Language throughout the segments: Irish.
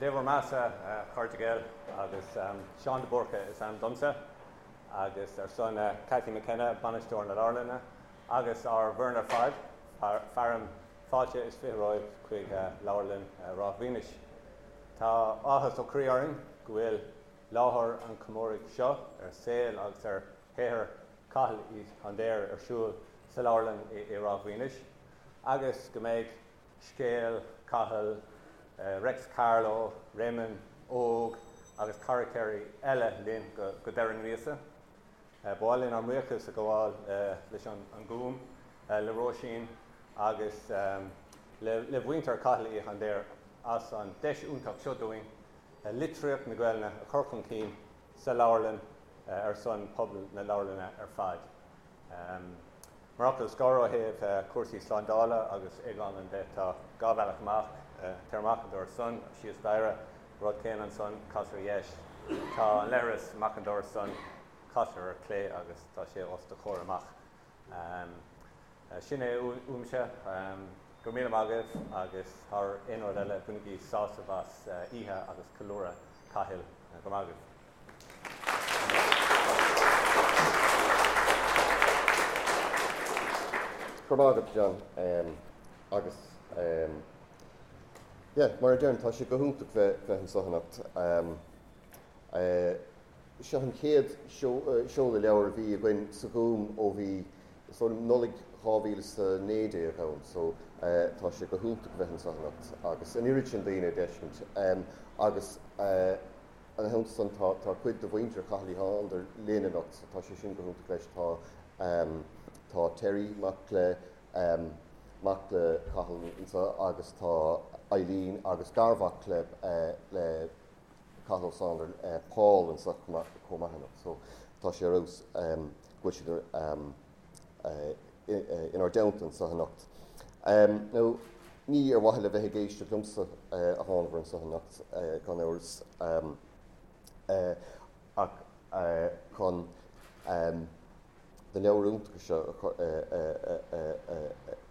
Dé bhur mbeathasa, a chairde Gael, agus Seán de Búrca is ainm domsa, agus ar son Cathy McKenna, Bainisteoir na Leabharlainne, agus ár bhfoireann ar fad, fearaim fáilte is 20 romhaibh chuig Leabharlann Ráth Mhaoinis. Tá áthas ó chroí orainn go bhfuil láthair an chomóraidh seo ar saol agus ar shaothar Chathail Uí Shándair ar siúl sa leabharlann i Ráth Mhaoinis, agus go mbeidh scéal Chathail, Reics Carló, Réamonn Óg agus carachtair eile linn go deireadh na míosa. Ba mhaith linn ár mbuíochas a ghabháil leis an nGúm, le Róisín agus le mhuintir Chathail Uí Shándair as an deis iontach seo dúinn litríocht na Gaelainne a chur chun cinn sa leabharlann ar son pobal na leabharlainne ar fad. Mar fhocal scoir ó thaobh cúrsaí slándála agus éagála de, tá 2 bhealach amach, tar amach an doras san, síos staighre, rud céanna ansan, cas ar dheis. Tá an leithreas amach an doras san, cas ar clé agus tá sé os do chomhair amach. Sin é uaimse. Go raibh míle maith agaibh agus thar aon rud eile, bainigí sásamh as oíche agus ceiliúradh Chathail. Go raibh maith agaibh. Go raibh maith agat, John. Agus yeah, mar a deirim, tá sé go hiontach bheith bheith anseo anocht. Seo an chéad seoladh leabhar a bhí againn sa Ghúm ó bhí is dóigh liom Nollaig 2019 ann, so tá sé go hiontach bheith anseo anocht agus an oiread sin daoine a d'fheiscint. Agus Ina theannta san tá tá cuid de mhuintir Chathail Uí Shándair linn anocht so tá sé sin go hiontach leis. Tá tá Terry, mac le mac le Cathal anseo agus tá Eileen agus garmhac le le Cathal Ó Sándair, Paul anseo chomh maith anocht so tá sé ar fheabhas go bhfuil siad inár dteannta anseo anocht. Now, ní ar mhaithe le bheith ag éisteacht liomsa a thánabhair anseo anocht, gan amhras, ach chun na leabhair iontacha seo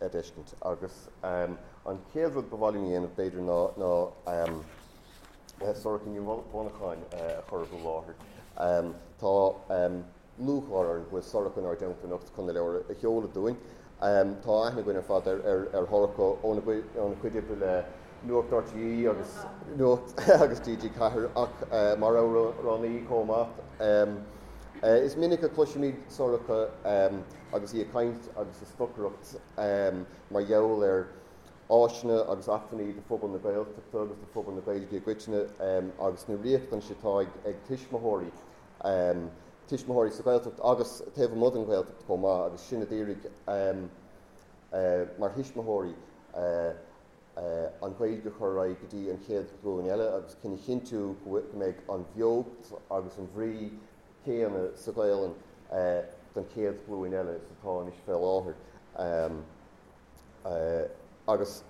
a d'fheiscint. Agus an chéad rud ba mhaith liom a dhéanamh, b'fhéidir, ná Sorcha Ní Mhonacháin a chur i láthair. Tá. lúcháir orainn go bhfuil Sorcha inár dteannta anocht chun na leabhair a sheoladh dúinn. Tá aithne againn ar fad ar Shorcha óna cuid oibre le Nuacht RTÉ agus Nuacht agus TG4 ach mar amhránaí chomh maith. Is minic a chloisimid Sorcha agus í ag caint agus ag stocaireacht mar gheall ar áiseanna agus acmhainní do phobal na Gaeltachta agus do phobal na Gaeilge i gcoitinne agus na riachtanais atá ag tuismitheoirí tuismitheoirí sa Ghaeltacht agus taobh amuigh den Ghaeltacht chomh maith agus sinn a d'iarraidh mar thuismitheoirí an Ghaeilge a chur ar aghaidh go dtí an chéad ghlúin eile agus chun a chinntiú go mbeidh an bheocht agus an bhrí chéanna sa Ghaelainn don chéad ghlúin eile is atá anois fé láthair. Agus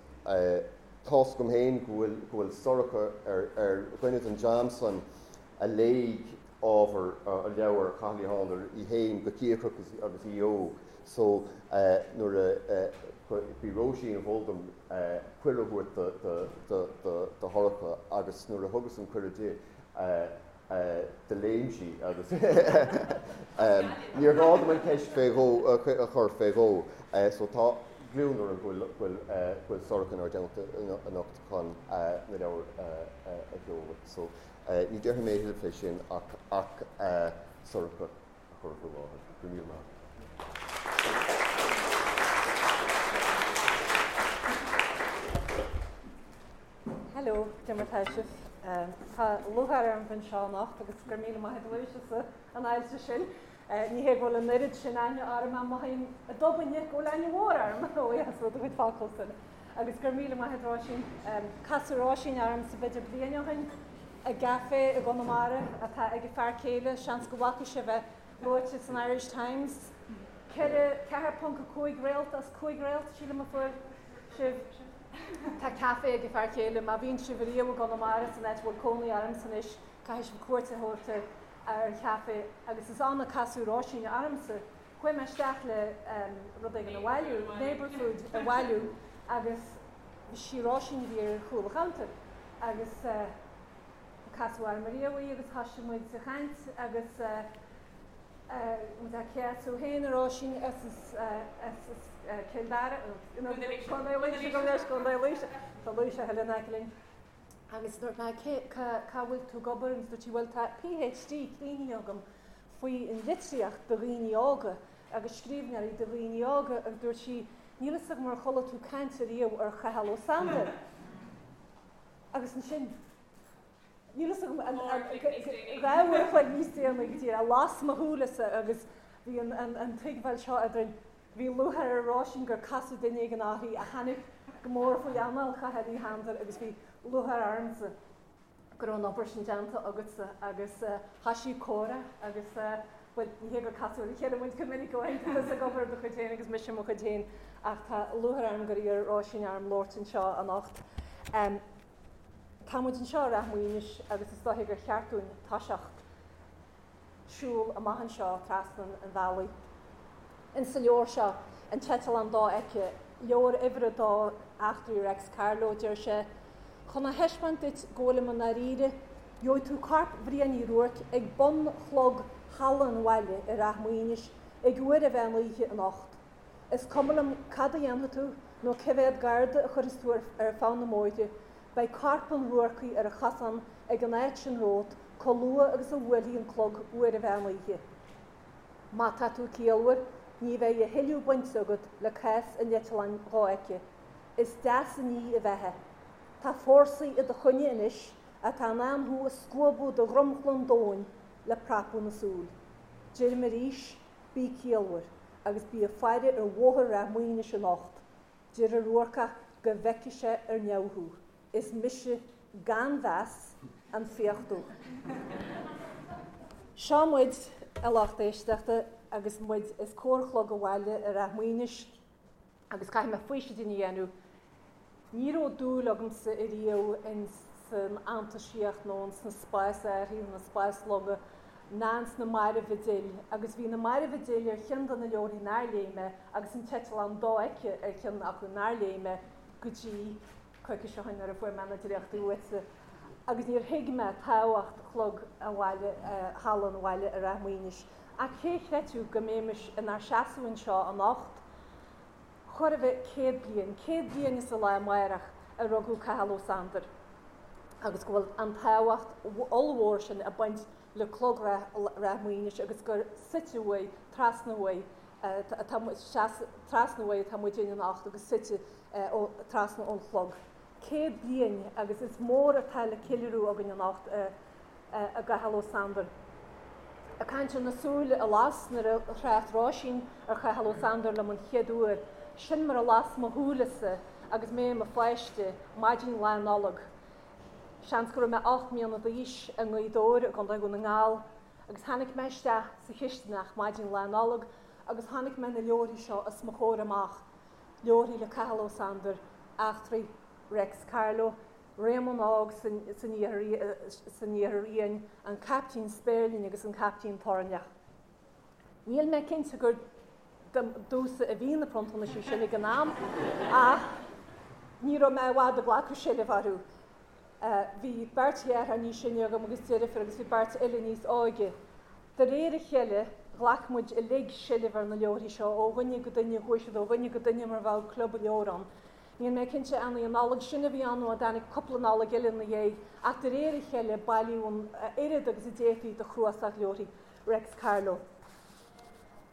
tá's agam féin go bhfuil, go bhfuil Sorcha ar, ar dhuine den dream san a léigh ábhar leabhar Chathail Uí Shándair í féin go cíocrach agus í óg. So nuair a, b'í Róisín a mhol dom cuireadh a thabhairt do, do, do, do, do Shorcha agus nuair a thugas an cuireadh di, do léim sí agus níor ghá dom an cheist fé dhó a chur fé dhó. So tá gliondar orm go bhfuil go bhfuil Sorcha inár dteannta anocht chun na leabhair a sheoladh. So ní déarfaidh mé a thuilleadh fé sin ach ach Sorcha a chur faoi láthair. Go raibh míle maith agat. Hello, cad é mar tá sibh? Tá lúcháir orm bheith anseo anocht agus go raibh míle maith agat Lewis as an fháilte sin. Ní hé go bhfuil an oiread sin aithne orm ach mothaím i dtobainne go bhfuil aithne mhór orm ó dheas do chuid focal san. Agus go raibh míle maith agat Róisín. Casadh Róisín ormsa b'fhéidir bliain ó shin i gcaife i gConamara atá ag a fear céile, seans go bhfaca sibh é luaite san Irish Times. 4, 4.5 réalt as 5 réalt, sílim a fuair sibh. Tá caife ag a fear céile. Má bhíonn sibh riamh i gConamara, san áit a bhfuil cónaí ormsa anois, caithfidh sibh cuairt a thabhairt ar an chaife. Agus is ann a casadh Róisín ormsa. Chuaigh mé isteach le rud éigin a bhailiú, neighbour food a bhailiú, agus sí Róisín a bhí ar chúl an chuntair. Agus. Casadh orm ariamh í agus thoisigh muid a chaint agus muid á céasadh féin a Róisín as as Cill Dara, Contae Laoise, gabh mo leithscéal, Contae Laoise, tá Laoise a thuilleadh in aice linn. Agus dúirt mé cé, cá bhfuil tú ag obair agus dúirt sí bhuel tá PhD críochnaithe agam faoi an litríocht do dhaoine óga agus scríbhneoirí do dhaoine óga agus dúirt sí níl fhios agam ar chuala tú caint ariamh ar Chathal Ó Sándair. Agus ansin, níl fhios agam, 2 uair a chloig níos déanaí go díreach, las mo shúilese agus bhí an tuigbheáil seo eadrainn, bhí lúcháir ar Róisín gur casadh duine éigin uirthi a tháinig go mór faoi anáil Chathail Uí Shándair agus bhí lúcháir ormsa go raibh an obair sin déanta agatsa agus thoisigh comhrá agus bhuel, ní hé gur casadh ar a chéile muid go minic ó shin, tá tusa ag obair ar do chuid féin agus mise ar mo chuid féin ach tá lúcháir orm gur iarr Róisín orm labhairt anseo anocht. Tá muid anseo i Rath Maoinis agus is dóiche gur cheart dúinn toiseacht siúl amach anseo trasna an bhealaigh. Insa leabhar seo, An tEiteallán Dofheicthe, leabhar uimhir a dó, Eachtraí Reics Carló, deir sé, Chun a thaispeáint duit go bhfuilim i ndáiríre, gheobhaidh tú corp Bhriain Uí Ruairc ag bun chlog Halla an Bhaile i Rath Maoinis ag uair an mheán oíche anocht. Is cuma liom cad a dhéanfaidh tú nó cé mhéad garda a chuirfeas tú ar feadh na mbóithre, beidh corp an Ruarcaigh ar an chosán ag an áit sin romhat chomh luath agus a bhuailfidh an clog uair an mheán oíche. Má tá tú ciallmhar, ní bheidh a thuilleadh bainte agat le cás an eitleáin dhofheicthe. Is deas an ní a bheatha. Tá fórsaí i do choinne anois atá in ann thú a scuabadh de dhromchla an domhain le prapadh na súl. Deirim arís, bí ciallmhar agus bí ag faire ar bhóthar Rath Maoinis anocht. Deir an Ruarcach go bhfeicfidh sé ar neamh thú. Is mise, gan mheas, an Fiach Dubh. Seo muid, a lucht éisteachta, agus muid os comhair Chlog an Bhaile i Rath Maoinis, agus caithfidh mé faoisidín a dhéanamh. Ní raibh dúil agamsa ariamh ins an fhantaisíocht nó ins na spás-árthaí nó na spáslonga ná ins na Mairbh a D'fhill, agus bhí na Mairbh a D'fhill ar cheann de na leabharthaí nár léigh mé agus an tEiteallán Dofheicthe ar cheann acu nár léigh mé go dtí coicís ó shin nuair a fuair mé na dréachtaí uaitse agus níor thuig mé tábhacht chlog an bhaile, Halla an Bhaile i Rath Maoinis. Ach cé a chreidfeadh go mbeimis inár seasamh anseo anocht, chóir a bheith 100 bliain, 100 bliain is an lá amárach a rugadh Cathal Ó Sándair agus go bhfuil an tábhacht ollmhór sin ag baint le clog Rath Maoinis agus gur suite uaidh, trasna uaidh, atá trasna uaidh atá muidinne anocht agus suite trasna ón chlog. 100 bliain agus is mór atá le ceiliúradh againn anocht i gCathal Ó Sándair. Ag caint ar na súile a las nuair a thrácht Róisín ar Chathal Ó Sándair liom an chéad uair, sin mar a las mo shúilese agus mé i mo pháiste, maidin Lá Nollag. Seans go raibh mé 8 mbliana d'aois i nGaoth Dobhair i gContae Dhún na nGall agus tháinig mé isteach sa chistineach maidin Lá Nollag agus chonaic mé na leabharthaí seo os mo chomhair amach, leabharthaí le Cathal Ó Sándair, Eachtraí Reics Carló, Réamonn Óg san Iarthar Fhiáin, An Caiptín Spéirling agus An Caiptín Toirneach. Níl mé cinnte gur domhsa a bhí na pronntanais sin ag an am ach ní raibh mé i bhfad ag glacadh seilbh orthu. Bhí beirt dheartháir níos sine agam agus deirfiúr agus bhí beirt eile níos óige. De réir a cheile, ghlac muid uilig seilbh ar na leabharthaí seo ó dhuine go duine, chuaigh siad ó dhuine go duine mar bheadh club leabhar ann. Níl mé cinnte an í an Nollaig sin a bhí ann nó an dtáinig cúpla Nollaig eile ina dhiaidh, ach de réir a cheile bailíodh an oiread agus a d'fhéadfaí de chnuasach leabharthaí Reics Carló.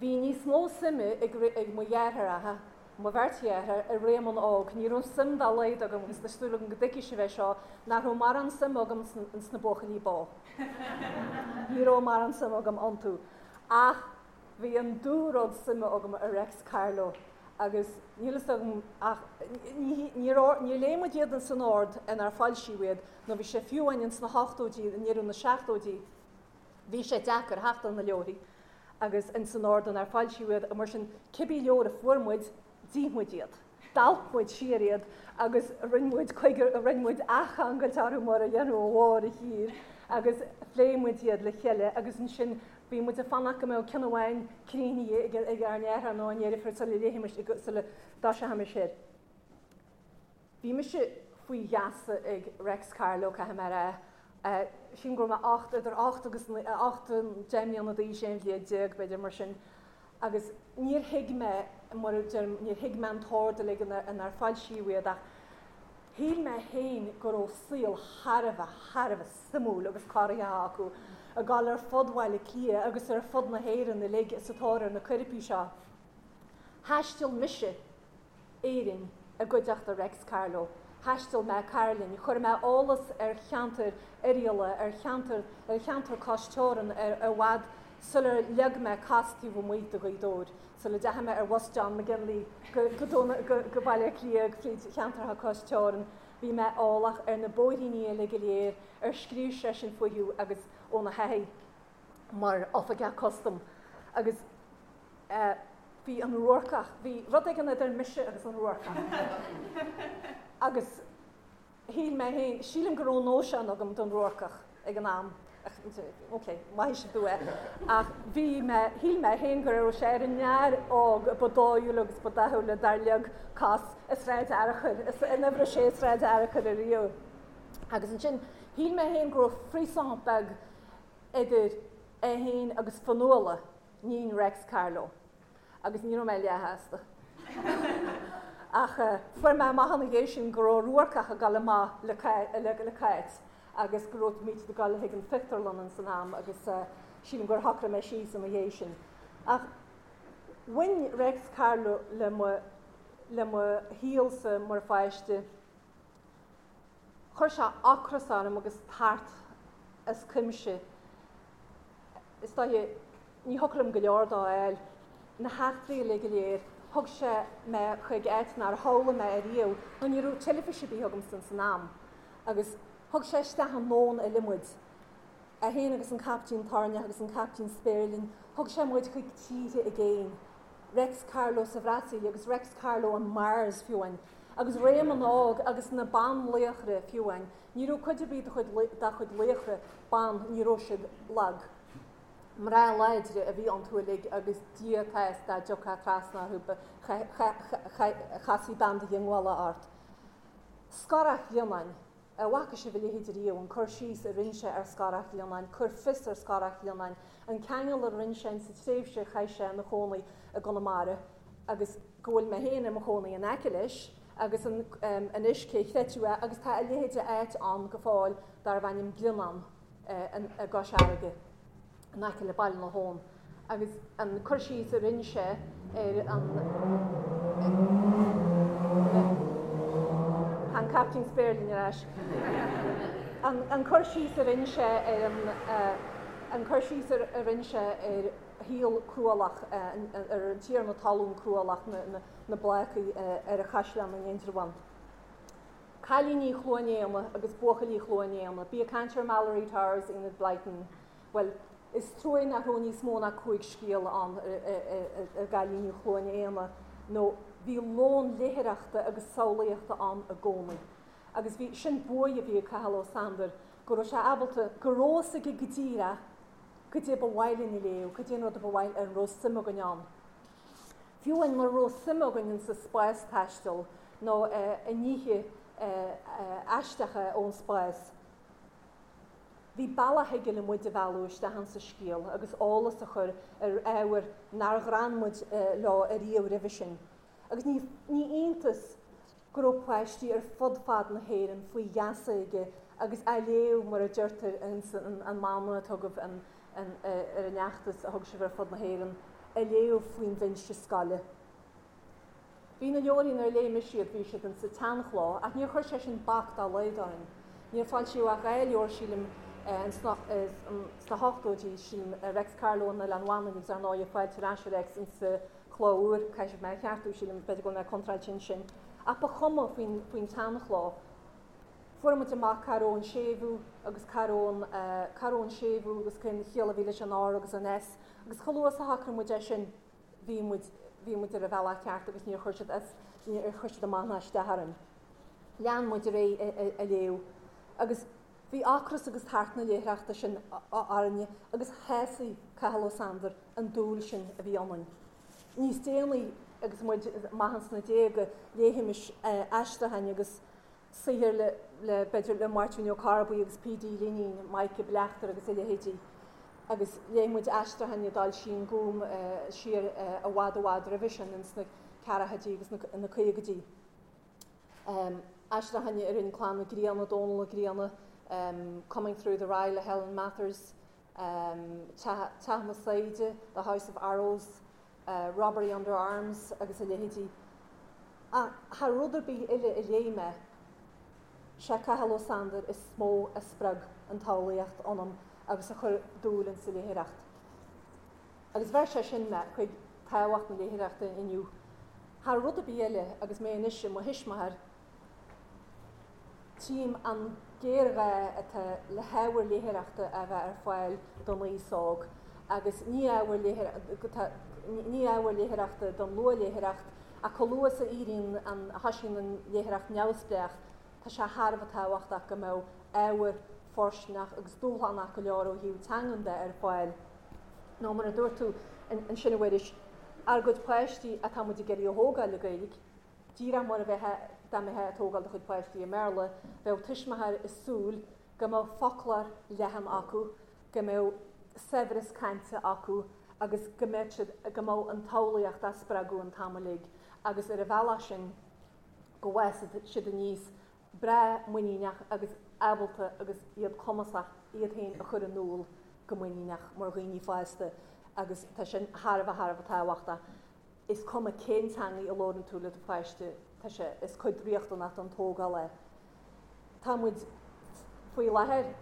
Bhí níos mó suime ag mo dheartháireacha, mo bheirt dheartháir, i Réamonn Óg. Ní raibh suim dá laghad agam, agus tá súil agam go dtuigfidh sibh é seo, nach raibh mórán suime agam ins na buachaillí bó. Ní raibh mórán suime agam iontu. Ach bhí an dúrud suime agam i Reics Carló agus níl fhios agam ach níor léigh muid iad ins an ord inar foilsíodh iad nó bhí sé fiú amháin ins na hochtóidí, i ndeireadh na seachtóidí, Bhí sé deacair theacht ar na leabharthaí agus ins an ord inar foilsíodh iad, mar sin cibé leabhar a fuair muid, d'ith muid iad. D'alp muid siar iad agus rinne muid coigear, rinne muid athcheangailt orthu mar a dhéanfadh an mháthair thiar agus phléigh muid iad le chéile agus ansin bhí muid ag fanacht go mbeadh ceann amháin críochnaithe ag ár ndeartháir nó ár ndeirfiúr sula léifimis, sula dtoiseochaimis air. Bhí mise faoi gheasa ag Reics Carló, caithfidh mé a rá. Sílim go raibh mé 8, idir 8 agus 8, 10 mbliana d'aois, 11 bhliain, b'fhéidir, mar sin. Agus níor thuig mé, mar a deirim, níor thuig mé an t-ord uilig inar foilsíodh iad ach shíl mé féin go raibh saol thar a bheith, thar a bheith suimiúil agus corraitheach acu, ag dul ar fud Bhaile Átha Cliath agus ar fud na hÉireann uilig sa tóir ar na coirpigh seo. Thaistil mise Éirinn i gcuideachta Reics Carló. Thaistil mé Cairlinn, chuir mé eolas ar cheantar Oirialla, ar cheantar ar cheantar cois teorann ar i bhfad sular leag mé cos taobh amuigh de Ghaoth Dobhair, sula dteachaigh mé ar bhus John McGinley go go go Baile Átha Cliath fríd cheantartha cois teorann. Bhí mé eolach ar na bóithríní uilig go léir ar scríobh seisean fúthu agus óna thaithí mar oifigeach custaim agus bhí an Ruarcach, bhí rud éigin idir mise agus an Ruarcach. Agus shíl mé féin, sílim go raibh nóisean agam don Ruarcach ag an am, ok, maithfidh sibh domh é, ach bhí mé, shíl mé féin go raibh sé ar an fhear óg ba dóighiúla agus ba dathúla dár leag cos i Sráid Fhearchair, in uimhir a sé Sráid Fhearchair ariamh. Agus ansin, shíl mé féin go raibh frisson beag idir é féin agus Fionnuala, níon Reics Carló, agus ní raibh mé leathshásta. Ach fuair mé amach ina dhiaidh sin go raibh Ruarcach ag dul amach le Cáit agus go raibh muid ag dul chuig an phictiúrlann ins an am agus sílim gur shocraigh mé síos ina dhiaidh sin. Ach bhain Reics Carló le mo le mo shaolsa mar pháiste. Chuir sé ocras orm agus tart as cuimse. Is dóiche, ní thiocfadh liom go leor dó a fháil. Na heachtraí uilig go léir, thug sé mé chuig áit nár shamhlaigh mé ariamh, nó ní raibh teilifís ar bith agamsa ins an am. Agus thug sé isteach i ndomhan eile muid. É féin agus an Caiptín Toirneach agus an Caiptín Spéirling, thug sé muid chuig tíortha i gcéin. Reics Carló sa Bhrasaíl agus Reics Carló on Mars, fiú amháin. Agus Réamonn Óg agus na banlaochra, fiú amháin. Ní raibh cuid ar bith dá chuid laochra ban, ní raibh siad lag. Mná láidre a bhí iontu uilig agus Dia atá is dá dtiocfá trasna orthu chasfaí bean de dhiongbhála ort. Scorach Ghlionnáin. An bhfaca sibh a leithéid riamh, an cur síos a rinne sé ar Scorach Ghlionnáin, cur fios ar Scorach Ghlionnáin, an ceangal a rinne sé insa tréimhse a chaith sé ina chónaí i gConamara agus go bhfuil mé féin i mo chónaí in aice leis agus an anois cé chreidfeadh é agus tá a leithéid de áit ann go fóill darbh ainm Glionnán i gCois Fharraige. in aice le Baile na hAbhann agus an cur síos a rinne sé ar an Tá an Caiptín Spéirling ar ais. An cur síos a rinne sé ar an an cur síos a rinne sé ar shaol cruálach ar an tiarna talún cruálach na Blácaigh ar an Chaisleán in Indreabhán. Cailíní Chluain Éanna agus buachaillí Chluain Éanna. Bí ag caint ar Malory Towers, Enid Blyton. Bhuel, is trua nach raibh níos mó ná 5 scéal ann ar gcailíní Chluain Éanna nó bhí lón léitheoireachta agus samhlaíochta ann i gcónaí. Agus bhí, sin buaidh a bhí ag Cathal Ó Sándair, go raibh sé ábalta, go raibh fhios aige go díreach goidé ba mhaith linn a léamh, goidé an rud a ba mhaith, a raibh suim againn ann. Fiú amháin mura raibh suim againn insa spástaisteal nó i nithe aisteacha ón spás, bhí bealach aige le muid a mhealladh isteach insa scéal agus eolas a chur ar ábhair nár ghrean muid leo ariamh roimhe sin. Agus ní iontas go raibh páistí ar fud fad na hÉireann faoi gheasa aige agus á léamh, mar a deirtear ins an mana atá agaibh ar an fheachtas a thug sibh ar fud na hÉireann, á léamh faoin bhinse scoile. Bhí na leabharthaí nuair a léigh mise iad, bhí siad insa tseanchló, ach níor chuir sé sin bac dá laghad orainn. Níor foilsíodh ach 2 leabhar, sílim, sna hochtóidí, sílim, Reics Carló in Oileán Mhanainn agus ar ndóigh Fáilte ar ais a Reics insa chló úr, caithfidh sibh mé a cheartú, sílim, b'fhéidir go bhfuil mé contráilte ansin. Ach ba chuma faoin faoin tseanchló. Fuair muid amach cá raibh an séimhiú agus cá raibh an, cá raibh an séimhiú agus cén chiall a bhí leis an R agus an S agus chomh luath is a shocraigh muid é sin bhí muid, bhí muid ar an bhealach ceart agus níor chuir siad as, níor chuir siad amach ná isteach orainn. Lean muid ar aghaidh a léamh agus bhí ocras agus tart na léitheoireachta sin orainne agus shásaigh Cathal Ó Sándair an dúil sin a bhí ionainn. Níos déanaí agus muid amach ins na déaga léifimis aistriúcháin agus. Saothair le, le, b'fhéidir, le Máirtín Ó Corrbuí agus P.D. Lineen, Maidhc Bleachtaire agus a leithéidí. Agus léigh muid aistriúcháin a d'fhoilsigh an Gúm siar i bhfad i bhfad roimhe sin, ins na ceathrachaidí agus na caogaidí. Aistriúcháin a rinne Clann Mhic Grianna, Dónall Ó Grianna, Coming Through the Rye le Helen Mathers, Teach na Saighde, The House of Arrows, Robbery Under Arms agus a leithéidí. Ach thar rud ar bith eile a léigh mé, sé Cathal Ó Sándair is mó a spreag an tsamhlaíocht ionam agus a chuir dúil insa léitheoireacht. Agus bheir sé sin mé chuig tábhacht na léitheoireachta inniu. Thar rud ar bith eile, agus mé anois i mo thuismitheoir, tchím an géarghá atá le hábhar léitheoireachta a bheith ar fáil don aos óg, agus ní ábhar ní ábhar léitheoireachta don luathléitheoireacht, ach chomh luath is a éiríonn an, a thosaíonn an léitheoireacht neamhspleách, tá sé thar a bheith tábhachtach go mbeadh ábhar fóirsteanach agus dúshlánach go leor ó thaobh teangan de ar fáil. Nó mar a dúirt tú ansin a Mhuiris, ár gcuid páistí atá muid ag iarraidh a thógáil le Gaeilge, díreach mar a bheifeá dá mbeifeá ag tógáil do chuid páistí i mBéarla, bheadh tuismitheoir ag súil go mbeadh foclóir leathan acu, go mbeadh saibhreas cainte acu agus go mbeadh siad, go mbeadh an tsamhlaíocht á spreagadh an t-am uilig agus ar an bhealach sin go bhfásfadh siad aníos breá muiníneach agus ábalta agus iad cumasach iad féin a chur in iúl go muiníneach mar dhaoine fásta agus tá sin thar a bheith thar a bheith tábhachtach. Is cuma cén teangaidh a labhrann tú le do pháiste, tá sé, is cuid riachtanach den tógáil é. Tá muid faoi láthair,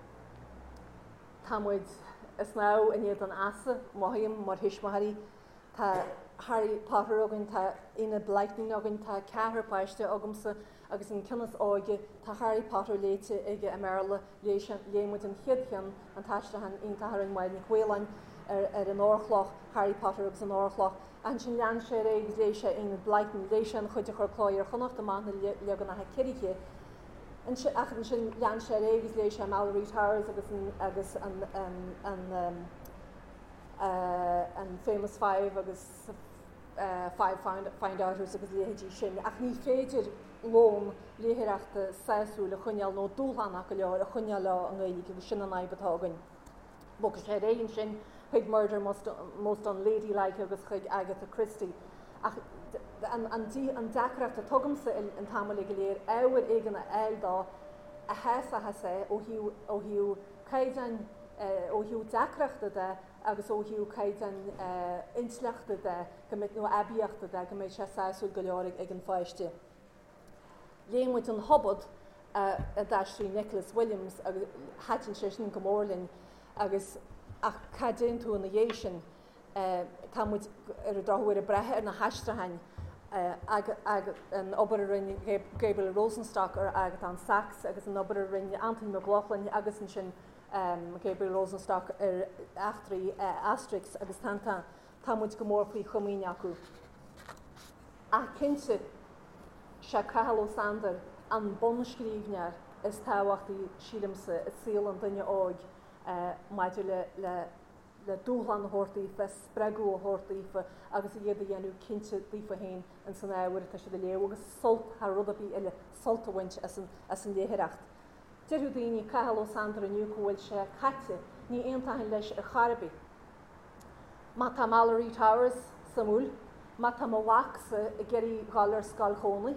tá muid ag snámh in éadan easa, mothaím, mar thuismitheoirí. Tá Harry Potter againn, tá Enid Blyton againn, tá ceathrar páiste agamsa agus an ceann is óige, tá Harry Potter léite aige i mBéarla, léigh sé, léigh muid an chéad cheann, an t-aistriúchán iontach a rinne Máire Nic Mhaoláin ar ar an Órchloch, Harry Potter agus an Órchloch. Ansin lean sé ar aghaidh agus léigh sé Enid Blyton, léigh sé an chuid a chuir Cló Iar-Chonnacht amach na leaganacha ciorraithe. Ansin, ach ansin lean sé ar aghaidh agus léigh sé Malory Towers agus an agus an an an Famous Five agus Five Find-Outers agus a leithéidí sin, ach ní féidir lón léitheoireachta sásúil a choinneáil nó dúshlánach go leor a choinneáil leo i nGaeilge agus sin an fhadhb atá againn. Bhog sé ar aghaidh ansin chuig Murder Most Unladylike agus chuig Agatha Christie. Ach an deacracht atá agamsa an t-am uilig go léir ábhar éigin a fháil dó a shásóchas é ó thaobh caighdeáin, ó thaobh deacrachta de agus ó thaobh caighdeáin intleachta de, go mbeidh, nó aibíochta de, go mbeidh sé sásúil go leor ag an pháiste. Léigh muid An Hobad a d'aistrigh Nicholas Williams agus thaitin sé sin go mór linn agus ach cá dtéann tú ina dhiaidh sin? Tá muid ar an drochuair ag brath ar na haistriúcháin, an obair a rinne Gabriel Rosenstock ar Agatán Sacs agus an obair a rinne Antain Mac Lochlainn agus ansin Gabriel Rosenstock ar eachtraí Asterix agus Tintin. Tá muid go mór faoi chomaoin acu. Ach cinnte, sé Cathal Ó Sándair an bunscríbhneoir is tábhachtaí, sílimse, i saol an duine óig maidir le le dúshlán a thabhairt daofa, spreagadh a thabhairt daofa agus iad a dhéanamh cinnte daofa féin ins an ábhar atá siad a léamh agus sult, thar rud ar bith eile, sult a bhaint as an as an léitheoireacht. Déarfadh daoine, Cathal Ó Sándair inniu go bhfuil sé caite, ní aontóinn leis ar chor ar bith. Má tá Malory Towers suimiúil, má tá mo mhacsa ag iarraidh dhul ar scoil chónaí,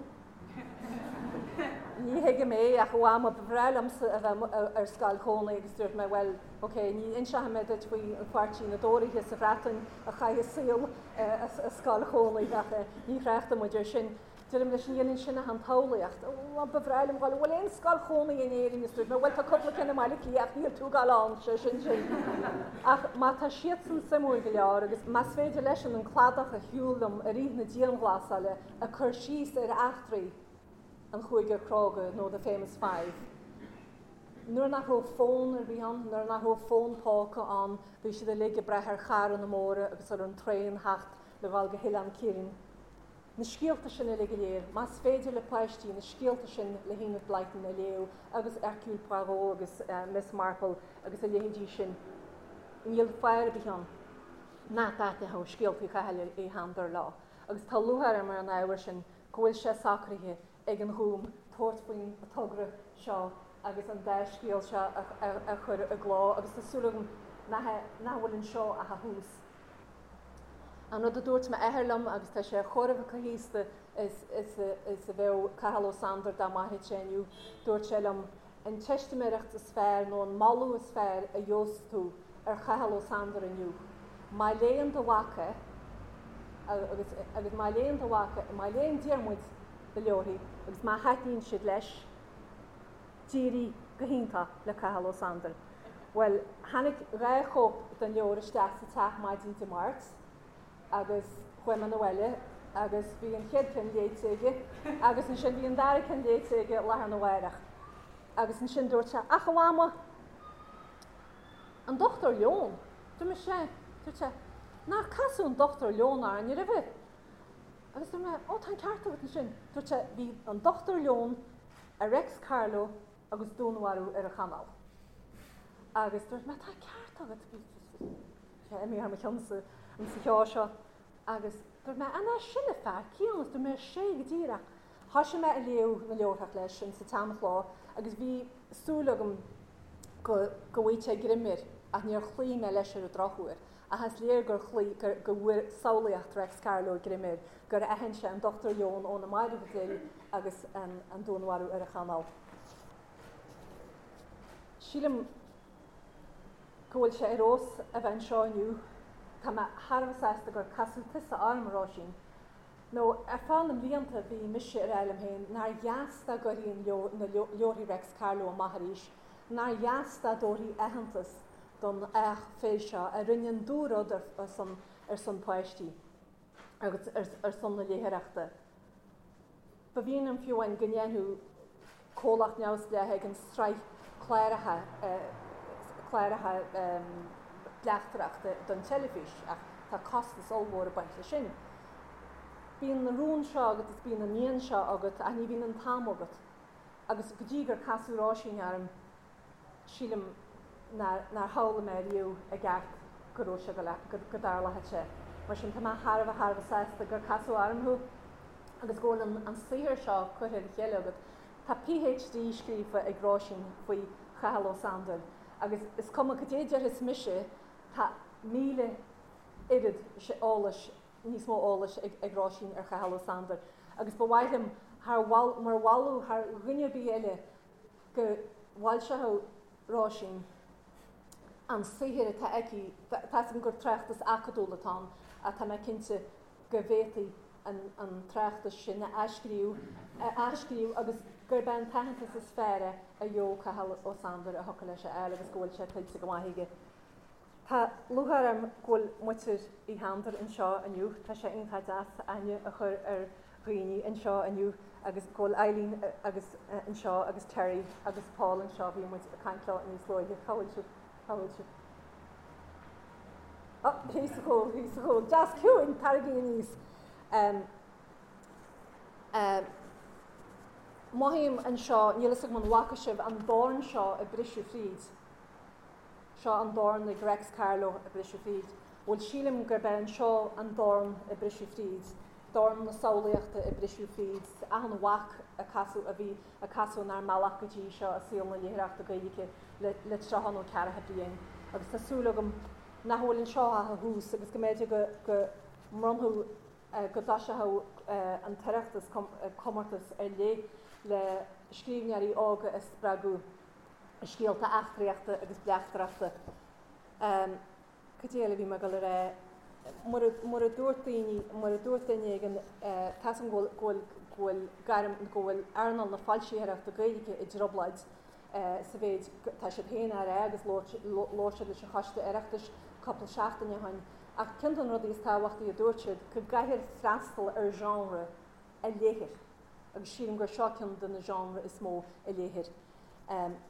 ní thuigim é ach a mhama, ba bhreá liomsa a bheith ar scoil chónaí agus dúirt mé bhuel, ok, ní inseoidh mé duit faoi an pháirtí na dTóraithe sa Bhreatain a chaith a saol i scoil chónaí ach ní thráchtfaidh muid air sin. Deirim leis, ní dhéanann sin ach an tsamhlaíocht. Ó, ba bhreá liom dhul, an bhfuil aon scoil chónaí in Éirinn? Is dúirt mé, bhuel, tá cúpla ceann i mBaile Átha Cliath ach níl tú ag dul ann, sé sin sin. Ach má tá siadsan suimiúil go leor agus más féidir leisean an cladach a shiúl liom i rith na dianghlasála ag cur síos ar eachtraí an Chúigear Cróga nó The Famous Five, nuair nach raibh fón ar bith ann, nuair nach raibh fón póca ann, bhí siad uilig ag brath ar charranna móra agus ar an traein theacht le dhul go hOileán Ciaráin. Na scéalta sin uilig go léir, más féidir le páistí na scéalta sin le hEnid Blyton a léamh agus Hercule Poirot agus Miss Marple agus a leithéidí sin, níl fáth ar bith ann nach dtaitneodh scéaltaí Chathail Uí Shándair leo. Agus tá lúcháir orm ar an ábhar sin go bhfuil sé socraithe ag an Ghúm tabhairt faoin togra seo agus an dá scéal seo a chur i gcló agus tá súil agam nach bhfuil anseo ach a thús. An rud a dúirt m'athair liom, agus tá sé chóir a bheith chomh haosta is a bheadh Cathal Ó Sándair dá mairfeadh sé inniu, dúirt sé liom, an teistiméireacht is fearr nó an moladh is fearr a gheobhas tú ar Chathal Ó Sándair inniu, má léann do mhac é, agus agus má léann do mhac é, má léann Diarmuid do leabharthaí agus má thaitníonn siad leis, d'éirigh go hiontach le Cathal Ó Sándair. Bhuel, tháinig 2 chóip den leabhar isteach sa teach maidin Dé Máirt agus chuaigh mé 'na bhaile agus bhí an chéad ceann léite aige agus ansin bhí an dara ceann léite aige lá arna mhárach. Agus ansin dúirt sé, Ach a Mhama, an Dochtúir Leon! Dúirt mé, Sea. Dúirt sé, Nár casadh an Dochtúir Leon orainn roimhe? Agus dúirt mé, Ó, tá an ceart agat ansin. Dúirt sé, Bhí an Dochtúir Leon ar Reics Carló agus dúnmharú ar an Chanáil. Agus dúirt mé, tá ceart agat, bhí sé imithe thar mo cheann sa cheo seo. Agus dúirt mé, an é sin an fear céanna? Dúirt mé, sé go díreach. Thoisigh mé a léamh na leabharthach leis in sa tseanchló agus bhí súil agam go go bhfaigheadh sé greim air ach níor chloígh mé leis ar an drochuair. Ach is léir gur chloígh, gur go bhfuair samhlaíocht Reics Carló greim air, gur aithin sé an Dochtúir Leon ó na Mairbh Dil agus an dúnmharú ar an Chanáil. Sílim go bhfuil sé ar fheabhas a bheith anseo inniu. Tá mé thar a bheith sásta gur casadh tusa orm, a Róisín. Nó ar feadh na mblianta bhí mise ag rá liom féin nár dheas dá gcuirfí na leabharthaí Reics Carló amach arís, nár dheas dá dtabharfaí aitheantas don each fir seo a rinne an dúrud ar son páistí agus ar son na léitheoireachta. Ba mhian liom fiú amháin go ndéanfadh comhlacht neamhspleách éigin sraith cláracha cláracha bleachtaireachta don teilifís ach tá costas ollmhór ag baint leis sin. Bíonn na rún seo agat is bíonn an mian seo agat ach ní bhíonn an t-am agat. Agus go dtí gur casadh Róisín orm, sílim nár shamhlaigh mé riamh i gceart go raibh sé go go dtarlódh sé. Mar sin tá mé thar a bheith thar a bheith sásta gur casadh orm thú agus go bhfuil an saothar seo curtha le chéile agat. Tá PhD scríofa ag Róisín faoi Chathal Ó Sándair agus is cuma cad é déarfas mise, tá 1000 oiread eolais, níos mó eolais ag Róisín ar Chathal Ó Sándair agus ba mhaith liom thar mar mholadh thar dhuine ar bith eile go bhfoilseodh Róisín an saothar atá aici, tá 'fhios agam gur tráchtas acadúil atá ann ach tá mé cinnte go bhféadfaí an tráchtas sin a athscríobh, a athscríobh agus gurb é an t-aitheantas is fearr é a gheobhadh Cathal Ó Sándair a thiocfadh leis a fháil agus go bhfuil sé tuillte go maith aige. Tá lúcháir orm go bhfuil muintir Uí Shándair anseo inniu. Tá sé iontach deas aithne a chur ar dhaoine anseo inniu agus go bhfuil Eileen agus anseo agus Terry agus Paul anseo, bhí muid ag caint leo níos luaithe. Cá bhfuil sibh? Cá bhfuil sibh? Ó, thíos sa chúl, thíos sa chúl. Deas ciúin, taraigí aníos. Um, um, mothaím anseo, níl fhios agam an bhfaca sibh an dorn seo ag briseadh fríd. Seo an dorn ag Reics Carló ag briseadh fríd. Bhuel, sílim gurb é anseo an dorn ag briseadh fríd, dorn na samhlaíochta ag briseadh fríd, achan bhac a casadh, a bhí, a casadh inár mbealach go dtí seo i saol na léitheoireachta Gaeilge le, le 30 nó ceathracha bliain. Agus tá súil agam nach bhfuil anseo ach a thús agus go mb'fhéidir go, go mbronnfadh, go dtoiseochadh an tOireachtas comórtas ar leith le scríbhneoirí óga a spreagadh. scéalta eachtraíochta agus bleachtaireachta. Cad é eile a bhí mé ag dul a rá? Mura, mura dúirt daoine, mura dúirt duine éigin, tá 'fhios agam go bhfuil, go bhfuil, go bhfuil gairm, go bhfuil earnáil na foilsitheoireachta Gaeilge i dtrioblóid sa mhéid, tá siad féin á rá agus labhair, labhair siad leis an Choiste Oireachtais cúpla seachtain ó shin, ach ceann de na rudaí is tábhachtaí a dúirt siad, go gcaithfear freastal ar genre a léithear agus sílim gur seo ceann de na genre is mó a léithear.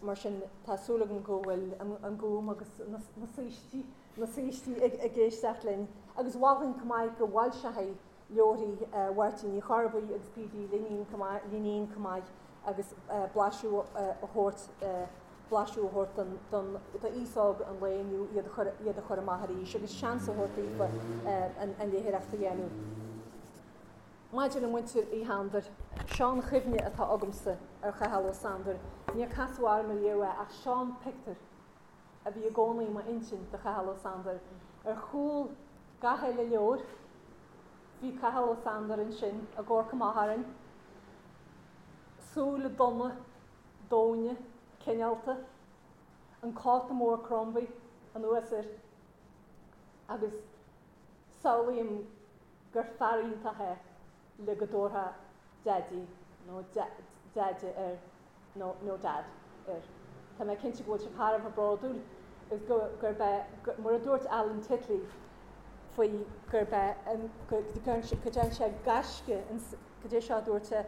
Mar sin, tá súil agam go bhfuil an Gúm agus na saoistí, na saoistí ag éisteacht linn. Agus mholfainn chomh maith go bhfoilseofaí leabharthaí Mháirtín Uí Chorrbuí agus P.D. Linín chomh maith, Linín chomh maith agus blaiseadh a thabhairt, blaiseadh a thabhairt don, don, d'aos óg an lae inniu iad a chur, iad a chur amach arís agus seans a thabhairt daofa an, an léitheoireacht a dhéanamh. Maidir le muintir Uí Shándair. Seo an chuimhne atá agamsa ar Chathal Ó Sándair. Níor casadh orm ariamh é ach seo an pictiúr a bhí i gcónaí i m'intinn de Chathal Ó Sándair. Ar chúl gach uile leabhar bhí Cathal Ó Sándair ansin ag amharc amach orainn, súile donna, domhaine, cineálta, an cóta mór Crombie anuas air agus samhlaím gur fear iontach é le go dtabharfá Daidí nó Deaide air nó nó Dad air. Tá mé cinnte go bhfuil sibh thar a bheith bródúil agus go gurb é mar a dúirt Alan Titley faoi gurb é an go go ndearna sé gaisce cad é seo a dúirt sé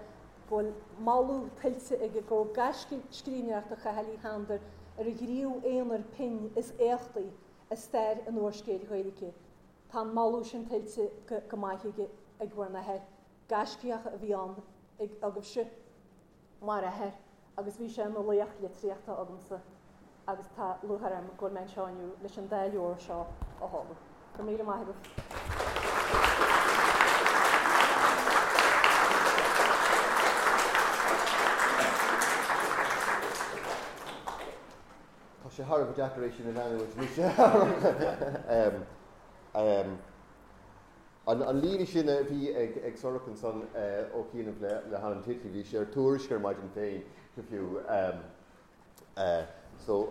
go bhfuil moladh tuillte aige go raibh gaisce scríbhneoireachta Chathail Uí Shándair ar an ghníomh aonair pinn is éachtaí i stair an úrscéil Ghaeilge. Tá an moladh sin tuillte go maith aige ag bhur n-athair. Gaiscíoch a bhí ann ag agaibhse mar athair agus bhí sé ina laoch litríochta agamsa agus tá lúcháir orm go bhfuil mé anseo inniu leis an dá leabhar seo a sheoladh. Go raibh míle maith agaibh. Tá sé thar a bheith deacair é sin a leanúint anois. An líne sin a bhí ag Sorcha ansan ó chianaibh le hAlan Titley, bhí sé ar Tuairisc ar maidin féin go fiú, so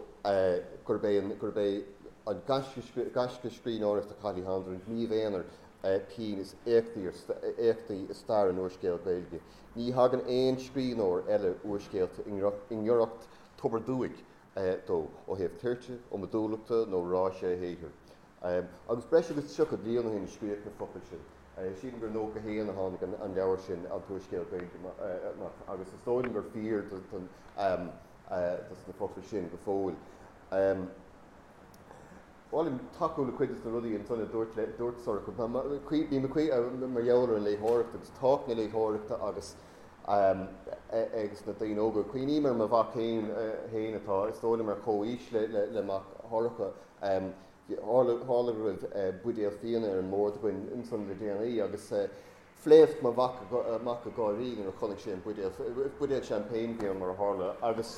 gurb é an gurb é an gaisce scríbhneoireachta Chathail Uí Shándair an gníomh aonair pinn is éachtaí i stair an úrscéil Ghaeilge. Ní thagann aon scríbhneoir eile úrscéalta i ngiorracht Tobar Dúic dó, ó thaobh toirte, iomadúlachta nó ráise a shaothair. Agus breis agus 30 bliain ó shin a scríodh na focail sin. Sílim gur 91 a tháinig an leabhar sin, An tÚrscéal Gaeilge, amach, agus is dóigh liom gur fíor dos na focail sin go fóill. Ba mhaith liom tacú le cuid de na rudaí ansan a dúirt dúirt Sorcha. Bím ag mar gheall ar an léitheoireacht agus tábhacht na léitheoireachta agus agus na daoine óga. Cuimhním ar mo mhac féin féin atá, is dóigh liom, ar chomhaois le mac Shorcha. Tharla go raibh buidéal fíona ar an mbord againn ansan le déanaí agus phléasc mo mhac amach ag gáirí nuair a chonaic sé an buidéal, buidéal champagne a bhí ann mar a tharla, agus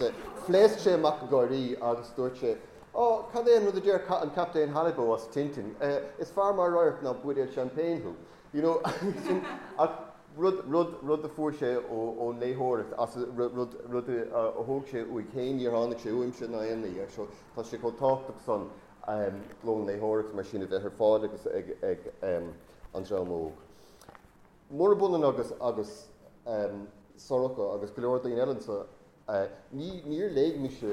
phléasc sé amach ag gáirí agus dúirt sé, Ó, cad é an rud a deir an Captaen Halibo as Tintin, is fearr mar radharc ná buidéal champagne thú. You know, sin, ach rud, rud, rud a fuair sé ón léitheoireacht, as, rud, rud a thóg sé uaidh féin, níor tháinig sé uaimse ná aon ní, so tá sé chomh tábhachtach san lón léitheoireachta mar sin a bheith ar fáil agus ag, ag an dream óg. Murab ionann agus, agus Sorcha agus go leor daoine eile anseo, Ní, níor léigh mise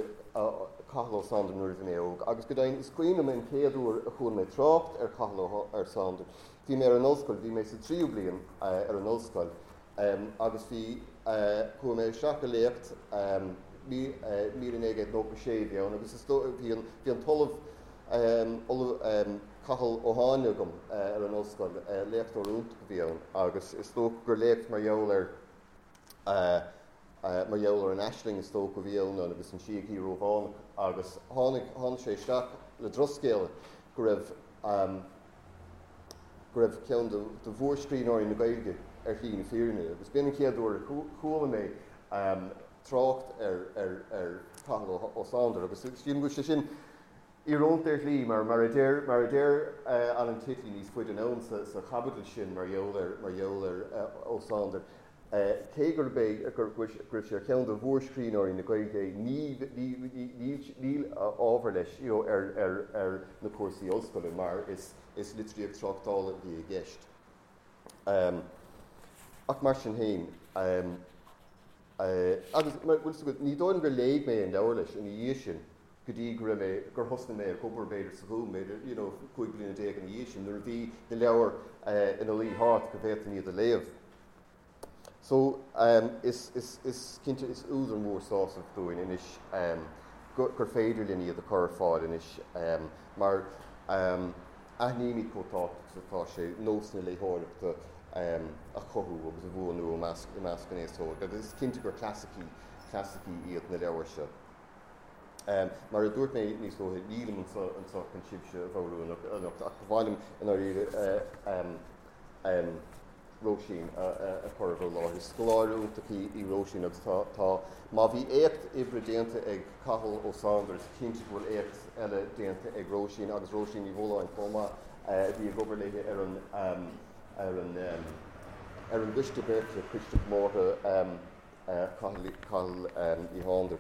Cathal Ó Sándair nuair a bhí mé óg, agus go deimhin is cuimhin liom an chéad uair a chuala mé trácht ar Chathal Ó Sándair. Bhí mé ar an ollscoil, bhí mé sa tríú bliain ar an ollscoil, agus bhí, chuaigh mé isteach i léacht, 1996 a bhí ann, agus is dóigh, bhí an, bhí an tOllamh, Ollamh Cathal Ó Háinle agam ar an ollscoil, léachtóir iontach a bhí ann, agus is dócha gur léacht mar gheall ar, mar gheall ar an aisling is dócha a bhí ann agus an síogaí Rómhánach agus tháinig, tháinig sé isteach le drochscéala go raibh, go raibh ceann de, de mhórscríbhneoirí na Gaeilge ar shlí na fírinne agus b'in an chéad uair a chuala mé trácht ar, ar, ar Chathal Ó Sándair agus sílim go bhfuil sé sin íorónta ar shlí mar, mar a deir, mar a deir Alan Titley níos faide anonn sa, sa chaibidil sin mar gheall ar, mar gheall ar Ó Sándair. Cé gurb é go raibh sé ar cheann de mhórscríbhneoirí na Gaeilge, níl ábhar leis ar na cúrsaí ollscoile mar is litríocht tráchtála a bhí i gceist. Ach mar sin féin, agus ní dóigh liom gur léigh mé an leabhar leis ina dhiaidh sin go dtí go raibh mé, gur thosnaigh mé ag obair b'fhéidir sa Ghúm, b'fhéidir, you know, 15 bliana ina dhiaidh sin, nuair a bhí na leabhair ina luí thart go bhféadfainn iad a léamh. So, is, is, is cinnte is údar mór sásaimh dúinn anois gur féidir linn iad a chur ar fáil anois mar aithnímid chomh tábhachtach is atá sé nós na léitheoireachta a chothú agus a bhuanú i measc, i measc an aos óig agus is cinnte gur clasaicí, clasaicí iad na leabhair seo. Mar a dúirt mé níos luaithe, nílim anseo anseo chun sibhse a bhodhrú anocht ach ba mhaith liom i ndáiríre. Róisín a chur i bhur láthair. Is scoláire iontach í Róisín agus tá, tá, má bhí éacht oibre déanta ag Cathal Ó Sándair is cinnte go bhfuil éacht eile déanta ag Róisín agus Róisín Ní Bhualáin chomh maith a bhí ag obair léi ar an, ar an, ar an gcoiste beartaithe, Coiste Comórtha Chathail, Chathail Uí Shándair.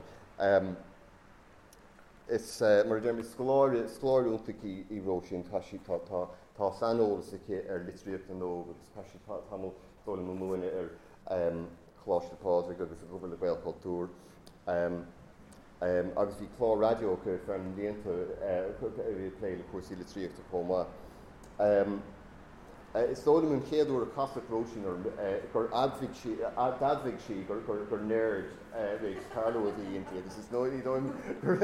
Is, mar a deirim, is scoláire, scoláire iontach í í Róisín. Tá sí, tá, tá, tá saineolas aici ar litríocht na n-óg agus chaith sí tamall dóigh liom ag múineadh ar Choláiste Phádraig agus ag obair le Gaelchultúr. Agus bhí clár raidió aici ar feadh na mblianta a bhí ag plé le cúrsaí litríochta chomh maith. Is dóigh liom an chéad uair a casadh Róisín orm gur admhaigh sí, d'admhaigh sí gur gur nerd Réics Carló a bhí inti agus is dóigh liom gur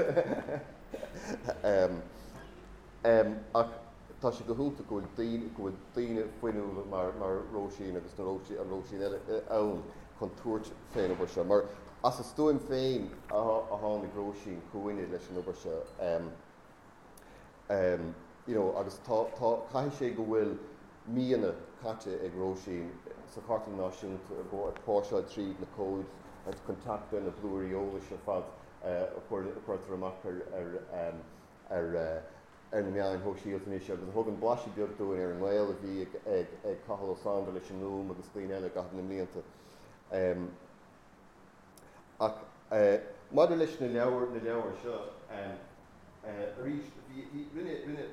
ach tá sé go hiontach go bhfuil daoine, go bhfuil daoine fuinniúla mar mar Róisín agus na Róisín, an Róisín eile ann chun tabhairt fén obair seo. Mar as a stuaim féin a tháinig Róisín chugainne leis an obair seo. You know, agus tá, tá, caithfidh sé go bhfuil míonna caite ag Róisín sa Chartlann Náisiúnta ag ag póirseáil tríd na comhaid agus chun teacht ar na blúirí eolais ar fad a chuir, a chuirtear amach ar, ar, ar, ar na meáin shóisialta anois agus a thugann blaiseadh beag dúinn ar an ngaol a bhí ag, ag, ag Cathal Ó Sándair leis an nGúm agus daoine eile i gcaitheamh na mblianta. Ach maidir leis na leabhair, na leabhair seo, arís, bhí, bhí, rinne, rinne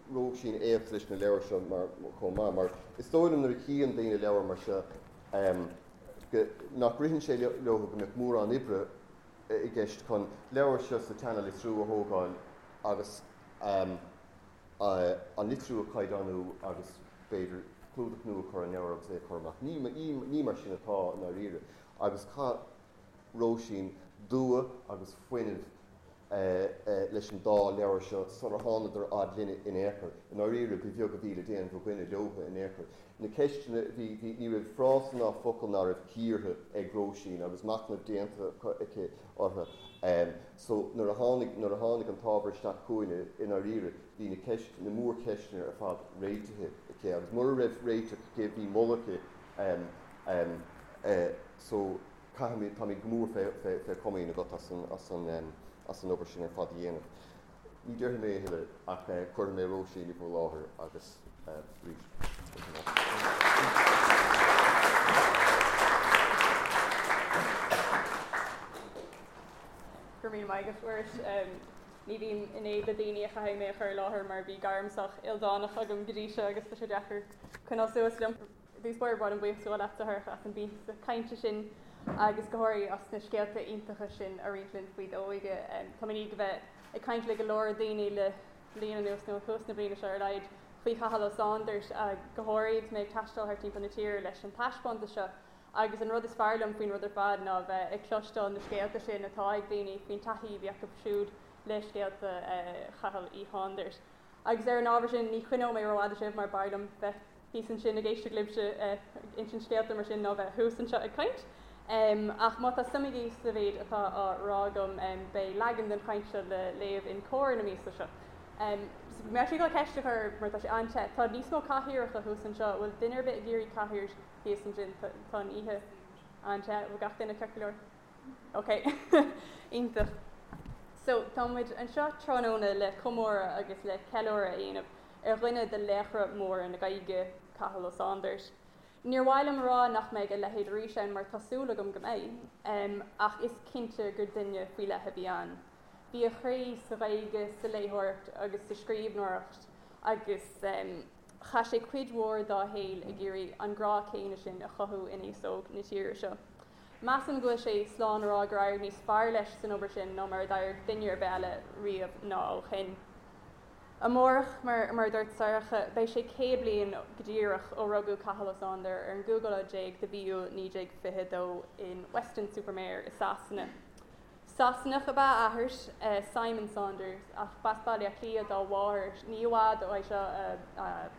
Róisín éacht leis na leabhair seo mar, chomh maith, mar is dóigh liom nuair a chíonn daoine leabhar mar seo, go, nach ritheann sé leo go mbeadh mórán oibre i gceist chun leabhar seo sa tseana-litriú a thógáil agus an litriú a chaighdeánú agus b'fhéidir clúdach nua a chur ar an leabhar agus é a chur amach. Ní, ní, ní mar sin atá i ndáiríre. Agus chaith Róisín dua agus fuinneamh leis an dá leabhar seo sular thánadar fhad linne in aon chor. I ndáiríre, ba bheag a bhí le déanamh againne leothu in aon chor. Na ceisteanna, bhí, bhí, ní raibh frása ná focal ná raibh cíortha ag Róisín agus machnamh déanta aici orthu. So, nuair a tháinig, nuair a tháinig an t-ábhar isteach chugainne, i ndáiríre, bhí na ceist, na mórcheisteanna ar fad réitithe aici agus mura raibh réiteach aici, bhí moladh aici. So, caithfimid, táimid go mór fé, fé, fé chomaoin agat as an, as an, as an obair sin ar fad a dhéanamh. Ní déarfaidh mé a thuilleadh ach cuirfidh mé Róisín i bhur láthair agus arís, Go raibh míle maith agat, Mhuiris. Ní bhím in éad le daoine a chaithfidh mé a chur i láthair mar bhí gairm sách ildánach agam go dtí seo agus tá sé deacair coinneáil suas liom. I dtús báire, ba mhaith liom buíochas a ghabháil leatsa, a Shorcha, as an bpíosa cainte sin agus go háirithe as na scéalta iontacha sin a roinnt linn faoi d'óige. Tá mé i ndiaidh a bheith ag caint le go leor daoine le bliain anuas, nó ó thús na bliana seo ar a laghad, faoi Chathal Ó Sándair, go háirithe agus mé ag taisteal thart timpeall na tíre leis an taispeántas seo. Agus an rud is fearr liom faoin rud ar fad ná a bheith ag cloisteáil na scéalta sin atá ag daoine faoin taithí a bhí acu siúd le scéalta Chathail Uí Shándair. Agus ar an ábhar sin, ní choinneoidh mé rófhada sibh mar b'fhearr liom bheith thíos ansin ag éisteacht libhse ag insint scéalta mar sin ná bheith thuas anseo ag caint. Ach má tá suim agaibh sa mhéid atá á rá agam, beidh leagan den chaint seo le léamh in Comhar na míosa seo. Mé ag dul ceist a chur mar tá sé an-te. Tá níos mó cathaoireacha thuas anseo. Bhfuil duine ar bith ag iarraidh cathaoir thíos ansin? Tá an oíche an-te. Bhfuil gach duine ceart go leor? Ok. Iontach. So, tá muid anseo tráthnóna le comóradh agus le ceiliúradh a dhéanamh ar dhuine de laochra móra na Gaeilge, Cathal Ó Sándair. Níor mhaith liom a rá nach mbeidh a leithéid arís ann mar tá súil agam go mbeidh, ach is cinnte gur duine faoi leith a bhí ann. Bhí a chroí sa Ghaeilge, sa léitheoireacht agus sa scríbhneoireacht agus chaith sé cuid mhór dá shaol ag iarraidh an grá céanna sin a chothú in aos óg na tíre seo. Measaim go bhfuil sé slán a rá gur éirigh níos fearr leis san obair sin ná mar a d'éirigh duine ar bith eile riamh ná ó shin. Amárach, mar a dúirt Sorcha, beidh sé 100 bliain go díreach ó rugadh Cathal Ó Sándair ar an gcúigiú lá déag de mhí Iúil 1922 in Weston-super-Mare i Sasana. Sasanach ab ea a athair, Simon Saunders, ach b'as Baile Átha Cliath dá mháthair. Ní i bhfad uaidh seo a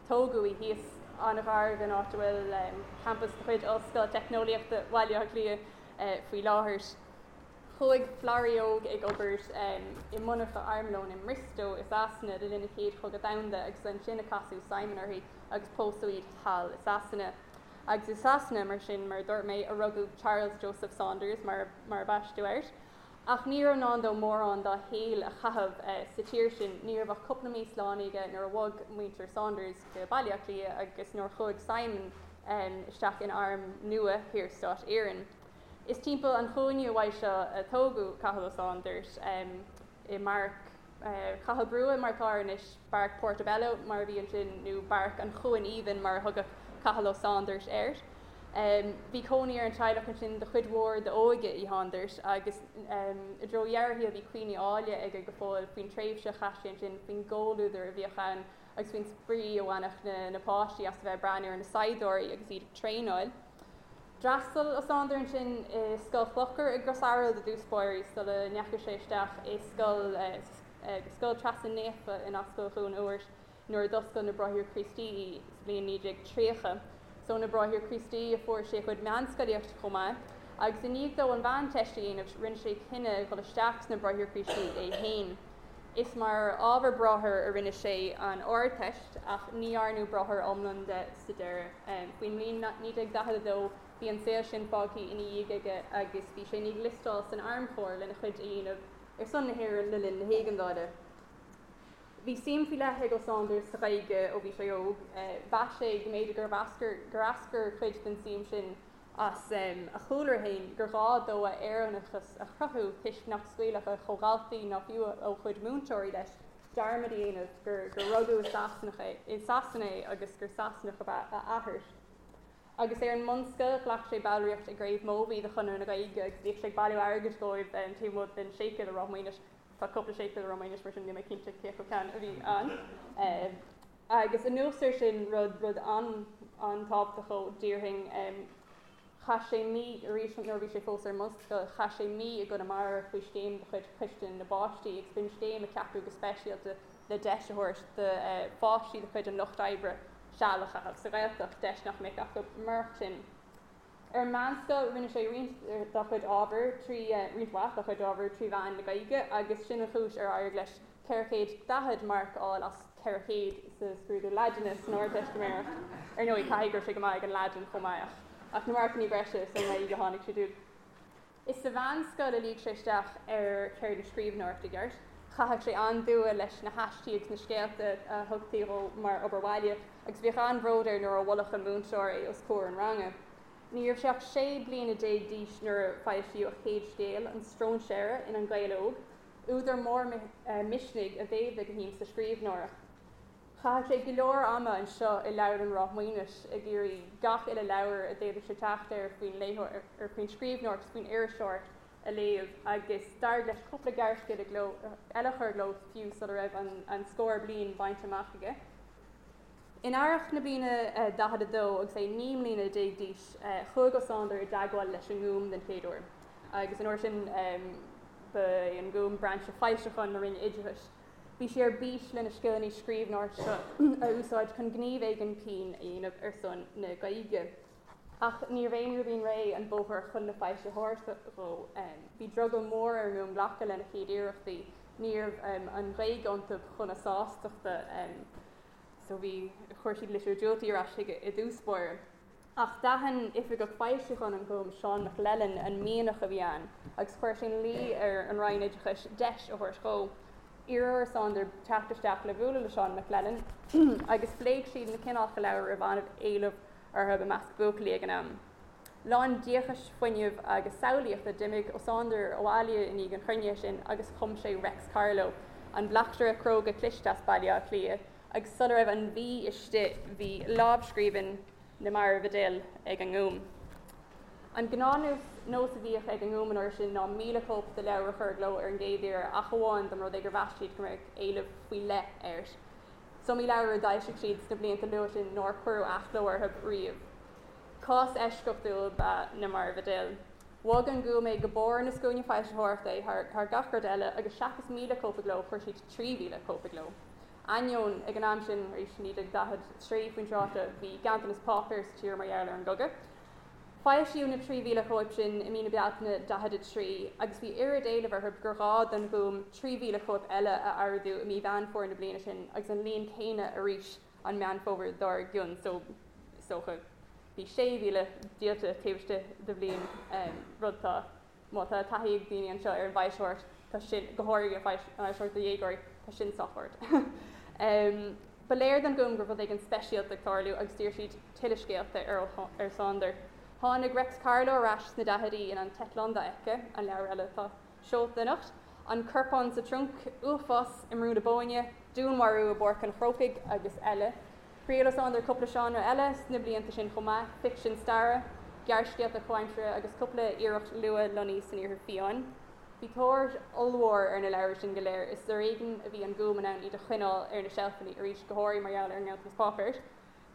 tógadh í, thíos an-ghar don áit a bhfuil campas de chuid Ollscoil Teicneolaíochta Bhaile Átha Cliath faoi láthair. Chuaigh Florrie óg ag obair i monarcha armlóin i mBriostó i Sasana le linn an Chéad Chogadh Domhanda agus ansin a casadh Simon uirthi agus pósadh iad thall i Sasana. Agus i Sasana, mar sin, mar a dúirt mé, a rugadh Charles Joseph Saunders, mar mar a baisteadh air. Ach ní raibh i ndán dó mórán dá shaol a chaitheamh sa tír sin. Ní raibh ach cúpla mí slánaithe aige nuair a bhog muintir Saunders go Baile Átha Cliath agus nuair a chuaigh Simon isteach in arm nua Shaorstát Éireann. Is timpeall an chúinne uaidh seo a tógadh Cathal Ó Sándair, i mBeairic Chathal Brugha mar atá air anois, Beairic Portobello mar a bhí ansin, nó Beairic an Chuain Aoibhinn mar a thugadh Cathal Ó Sándair air. Bhí cónaí ar an teaghlach ansin do chuid mhór d'óige Uí Shándair agus i dtreo dheireadh a shaoil bhí cuimhní áille aige go fóill faoin tréimhse a chaith sé ansin, faoin gcomhluadar a bhíodh ann agus faoin spraoi a bhainfeadh na páistí as a bheith ag breathnú ar na saighdiúirí agus iad ag traenáil. D'fhreastail Ó Sándair ansin i Scoil Chlochair i gCros Araild i dtús báire sula ndeachaigh sé isteach i Scoil Scoil Treasa Naofa in Ascaill Dhún Úirt nuair a d'oscail na Bráithre Críostaí í sa bhliain 1930. Is ó na Bráithre Críostaí a fuair sé a chuid meánscolaíochta chomh maith agus i ndiaidh dó an Mheánteist a dhéanamh rinne sé cinneadh dhul isteach sna Bráithre Críostaí é féin. Is mar ábhar bráthar a rinne sé an Ardteist ach ní dhearnadh bráthair iomlán de sa deireadh. Faoin mbliain 1942 bhí an saol sin fágtha ina dhiaidh aige agus bhí sé i ndiaidh liostáil san Armchór lena chuid a dhéanamh ar son na hÉireann le linn na hÉigeandála. Bhí suim faoi leith ag Ó Sándair sa Ghaeilge ó bhí sé óg. Mheas sé go mb'fhéidir gur eascair cuid den suim sin as a chúlra féin, gur ghá dó a Éireannachas a chruthú toisc nach scaoilfeadh a chomhdhaltaí ná fiú a chuid múinteoirí leis dearmad a dhéanamh gur rugadh i Sasanach é, i Sasana é agus gur Sasanach ab ea a athair. Agus é ar an mbunscoil, ghlac sé ballraíocht i gCraobh Mobhí de Chonradh na Gaeilge agus bhíodh sé ag bailiú airgid dóibh taobh amuigh den séipéal i Ráth Maonais. Tá cúpla séipéal i Ráth Maonais mar sin níl mé cinnte cé acu ceann a bhí ann. Agus anuas air sin, rud, rud an-tábhachtach dhó, déarfainn, chaith sé mí, arís nuair a bhí sé fós ar an mbunscoil, chaith sé mí i gConamara faoi scéim de chuid Choiste na bPáistí agus b'in scéim a ceapadh go speisialta le deis a thabhairt do pháistí de chuid an lucht oibre seal a chaitheamh sa Ghaeltacht, deis nach mbeadh acu murach sin. Ar an meánscoil, rinne sé roinnt dá chuid ábhair trí, roinnt mhaith dá chuid ábhair trí mheán na Gaeilge agus sin an chúis ar éirigh leis 440 marc a fháil as 400 sa scrúdú Laidine san Ardteistiméireacht. Ar ndóigh, caithfidh go raibh sé go maith ag an Laidin chomh maith ach na marcannaí breise sa nGaeilge a tháinig siad uaidh. Is sa mheánscoil a luigh sé isteach ar cheird na scríbhneoireachta i gceart. Chaitheadh sé an-dua leis na haistí agus na scéalta a thugtaí dhó mar obair bhaile agus bhíodh an-bhród air nuair a mholfadh an múinteoir é os comhair an ranga. Ní raibh sé ach 16 bliana d'aois nuair a foilsíodh a chéad scéal, An Stróinséara, in An Gael Óg. Údar mór misnigh a mhéadaigh a shuim sa scríbhneoireacht. Chaitheadh sé go leor ama anseo i Leabharlann Ráth Maonais ag iarraidh gach uile leabhar a d'fhéadfadh sé teacht air faoin léitheoir, faoin scríbhneoireacht is faoin iriseoireacht a léamh agus d'éirigh leis cúpla gearrscéal i gcló eile a chur i gcló fiú sula raibh an scór bliain bainte amach aige. In earrach na bliana 42, agus é 19 mbliana d'aois, chuaigh Ó Sándair i dteagmháil leis an nGúm den chéad uair, agus an uair sin ba é an Gúm brainse foilseacháin na Roinne Oideachais. Bhí sé ar bís lena scileanna scríbhneoireachta a úsáid chun gníomh éigin pinn a dhéanamh ar son na Gaeilge. Ach níorbh aon ribín réidh an bóthar chun na foilsitheoireachta dhó. Bhí drogall mór ar an nGúm glacadh lena chéad iarrachtaí. Ní raibh an Ghaeilge iontu chun a sástachta. So bhí, chuir siad litriú diúltaí ar ais chuige i dtús báire. Ach d'aithin oifigeach foilseacháin an Ghúim, Seán McLellan, an mianach a bhí ann agus chuir sé ina luí ar an Roinn Oideachais deis a thabhairt dhó. Iarradh ar Sándair teacht isteach le bualadh le Seán McLellan agus phléigh siad na cineálacha leabhar a raibh an-éileamh orthu i measc buachaillí ag an am. Lán díocais, fuinnimh agus samhlaíochta, d'imigh Ó Sándair abhaile i ndiaidh an chruinnithe sin agus chum sé Reics Carló, an bleachtaire cróga cliste as Baile Átha Cliath, agus sula raibh an mhí istigh bhí lámhscríbhinn Na Mairbh a D'Fhill ag an nGúm. An gnáthnós a bhíodh ag an nGúm an uair sin ná 1,000 cóip de leabhar a chur i gcló ar an gcéad iarraidh ach amháin dá mba rud é gur mheas siad go mbeadh éileamh faoi leith air. Is iomaí leabhar a d'fhoilsigh siad sna blianta luatha sin nár cuireadh athchló orthu riamh. Cás eisceachtúil ab ea Na Mairbh a D'Fhill. Bhog an Gúm é go barr na scuaine foilsitheoireachta é thar gach rud eile agus seachas 1,000 cóip i gcló chuir siad 3,000 cóip i gcló. Ainneoin, ag an am sin, arís 1943 faoin tráth seo, bhí ganntanas páipéir sa tír mar gheall ar an gcogadh. Foilsíodh na 3,000 cóip sin i mí na Bealtaine 43 agus bhí oiread éilimh orthu gur ghá don Ghúm 3,000 cóip eile a ordú i mí Mheán Fómhair na bliana sin agus an líon céanna arís an Meán Fómhair dár gcionn, so is dócha. Bhí 6,000 díolta taobh istigh de bhliain, rud atá, má tá taithí ag daoine anseo ar an bhfoilsitheoireacht, tá sin, go háirithe an fhoilsitheoireacht do dhéagóirí, tá sin sách ard. Ba léir don Ghúm go raibh rud éigin speisialta ag tarlú agus d'iarr siad tuilleadh scéalta ar Ó Sándair. Tháinig Reics Carló ar ais sna daichidí in An tEitleán Dofheicthe, an leabhar eile atá seolta anocht, An Corpán sa Trunc, Uafás i mBrú na Bóinne, Dúnmharú i bPáirc an Chrócaigh agus eile. Thriail Ó Sándair cúpla seánra eile sna blianta sin chomh maith, ficsean staire, gearrscéalta comhaimseartha agus cúpla iarracht luath-lonnaí san Iarthar Fiáin. Bhí tóir ollmhór ar na leabhair sin go léir. Is ar éigean a bhí an Gúm in ann iad a choinneáil ar na seilfeanna, arís go háirithe mar gheall ar an nganntanas páipéir.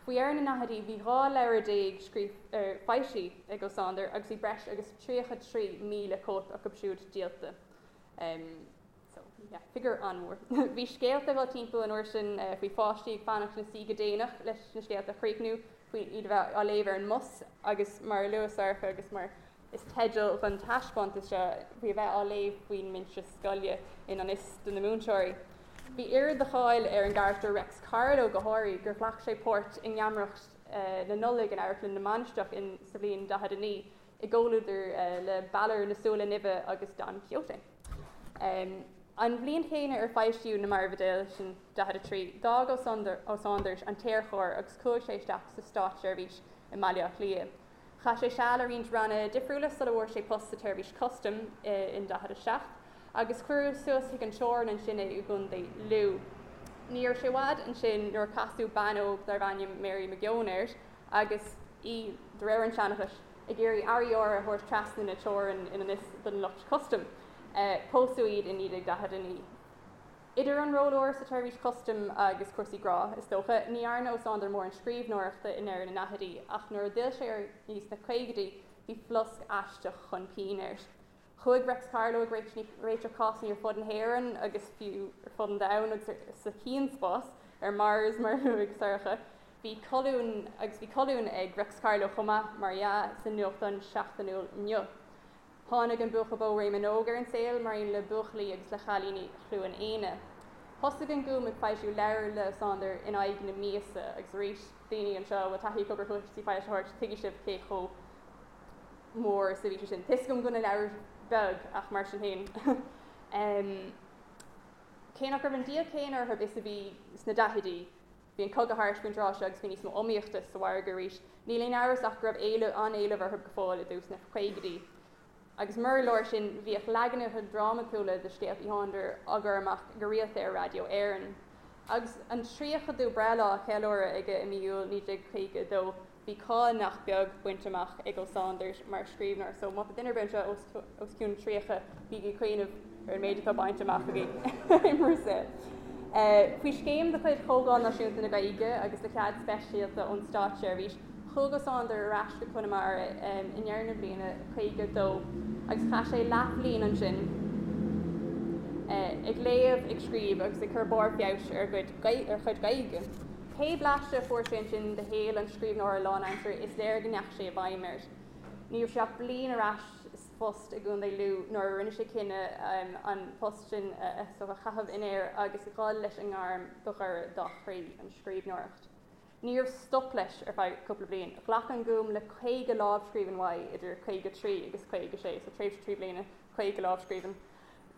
Faoi dheireadh na ndaichidí bhí 12 leabhar foilsithe ag Ó Sándair agus bhí breis agus 33,000 cóip acu siúd díolta. So, yeah, figiúr an-mhór. Bhí scéalta ag dul timpeall an uair sin faoi pháistí ag fanacht ina suí go déanach leis na scéalta a chríochnú, faoi iad a bheith á léamh ar an mbus agus mar a luaigh Sorcha agus mar is teideal don taispeántas seo, faoi a bheith á léamh faoin mbinse scoile i ngan fhios do na múinteoirí. Bhí oiread de cháil ar an gcarachtar Reics Carló go háirithe gur ghlac sé páirt i ngeamaireacht na Nollag in Amharclann na Mainistreach in sa bhliain 49 i gcomhluadar le Balor na Súile Nimhe agus Don Quixote. An bhliain chéanna ar foilsíodh Na Marbhidéil, sin 43, d'fhág Ó Sándair an tAerchór agus chuaigh sé isteach sa státseirbhís i mBaile Átha Cliath. Chaith sé seal i roinnt ranna difriúla sula bhfuair sé post sa tSeirbhís Custaim in 47, agus cuireadh suas chuig an teorainn ansin é i gContae Lú. Ní raibh sé i bhfad ansin nuair a casadh bean óg darbh ainm Mary McGeown air agus í, de réir an tseanchais, ag iarraidh earraí áirithe a thabhairt trasna na teorann i ngan fhios don lucht custaim. Pósadh iad i 1949. Idir an ról úr sa tseirbhís custaim agus cúrsaí grá, is dócha, ní dhearna Ó Sándair mórán scríbhneoireachta i ndeireadh na ndaichidí, ach nuair a d'fhill sé air sna caogaidí, bhí flosc aisteach chun pinn air. Chuaigh Reics Carló ag réiteach cásanna ar fud na hÉireann agus fiú ar fud an domhain agus sa chianspás, ar Mars mar a luaigh Sorcha. Bhí colún agus bhí colún ag Reics Carló chomh maith, mar dhea, sa nuachtán seachtainiúil Inniu. Tháinig an buachaill bó Réamonn Óg ar an saol mar aon le buachaillí agus le chailíní Chluain Éanna. Thosaigh an Gúm ag foilsiú leabhar le Ó Sándair in aghaidh na míosa agus arís, daoine anseo a bhfuil taithí acu ar chúrsaí foilsitheoireachta, tuigfidh sibh cé chomh mór is a bhí sé sin. Tá a fhios agam go bhfuil na leabhair beag ach mar sin féin. Cé nach raibh an díol céanna orthu is a bhí sna daichidí, Bhí an cogadh thart faoin tráth seo agus bhí níos mó iomaíochta sa mhargadh arís. Níl aon amhras ach go raibh éileamh, an-éileamh orthu go fóill i dtús na caogaidí. Agus murar leor sin, bhíodh leaganacha drámatúla de scéalta Uí Shándair á gcur amach go rialta ar Raidió Éireann. Agus an tríochadú breithlá á cheiliúradh aige i mí Iúil 1952, Bhí cáil nach beag bainte amach ag Ó Sándair mar scríbhneoir so má tá duine ar bith anseo os cionn 30, bígí ag cuimhneamh ar an méid atá bainte amach agaibh i bhur saol. Faoi scéim de chuid Chomhdháil Náisiúnta na Gaeilge agus le cead speisialta ón Státseirbhís, chuaigh Ó Sándair ar ais go Conamara i ndeireadh na bliana 52 agus chaith sé leathbhliain ansin ag léamh, ag scríobh agus ag cur barr feabhais ar a chuid Gaeilge. Pé blaiseadh a fuair sé ansin de shaol an scríbhneora lánaimseartha, is léir go ndeachaigh sé i bhfeidhm air. Ní raibh sé ach bliain ar ais sa phost i gContae Lú nuair a rinne sé cinneadh an post sin a chaitheamh in aer agus dhul leis an ngairm ba ghaire dá chroí, an scríbhneoireacht. Ní raibh stop leis ar feadh cúpla bliain. Ghlac an Gúm le 50 lámhscríbhinn uaidh idir 53 agus 56, so tréimhse 3 bliana, 50 lámhscríbhinn.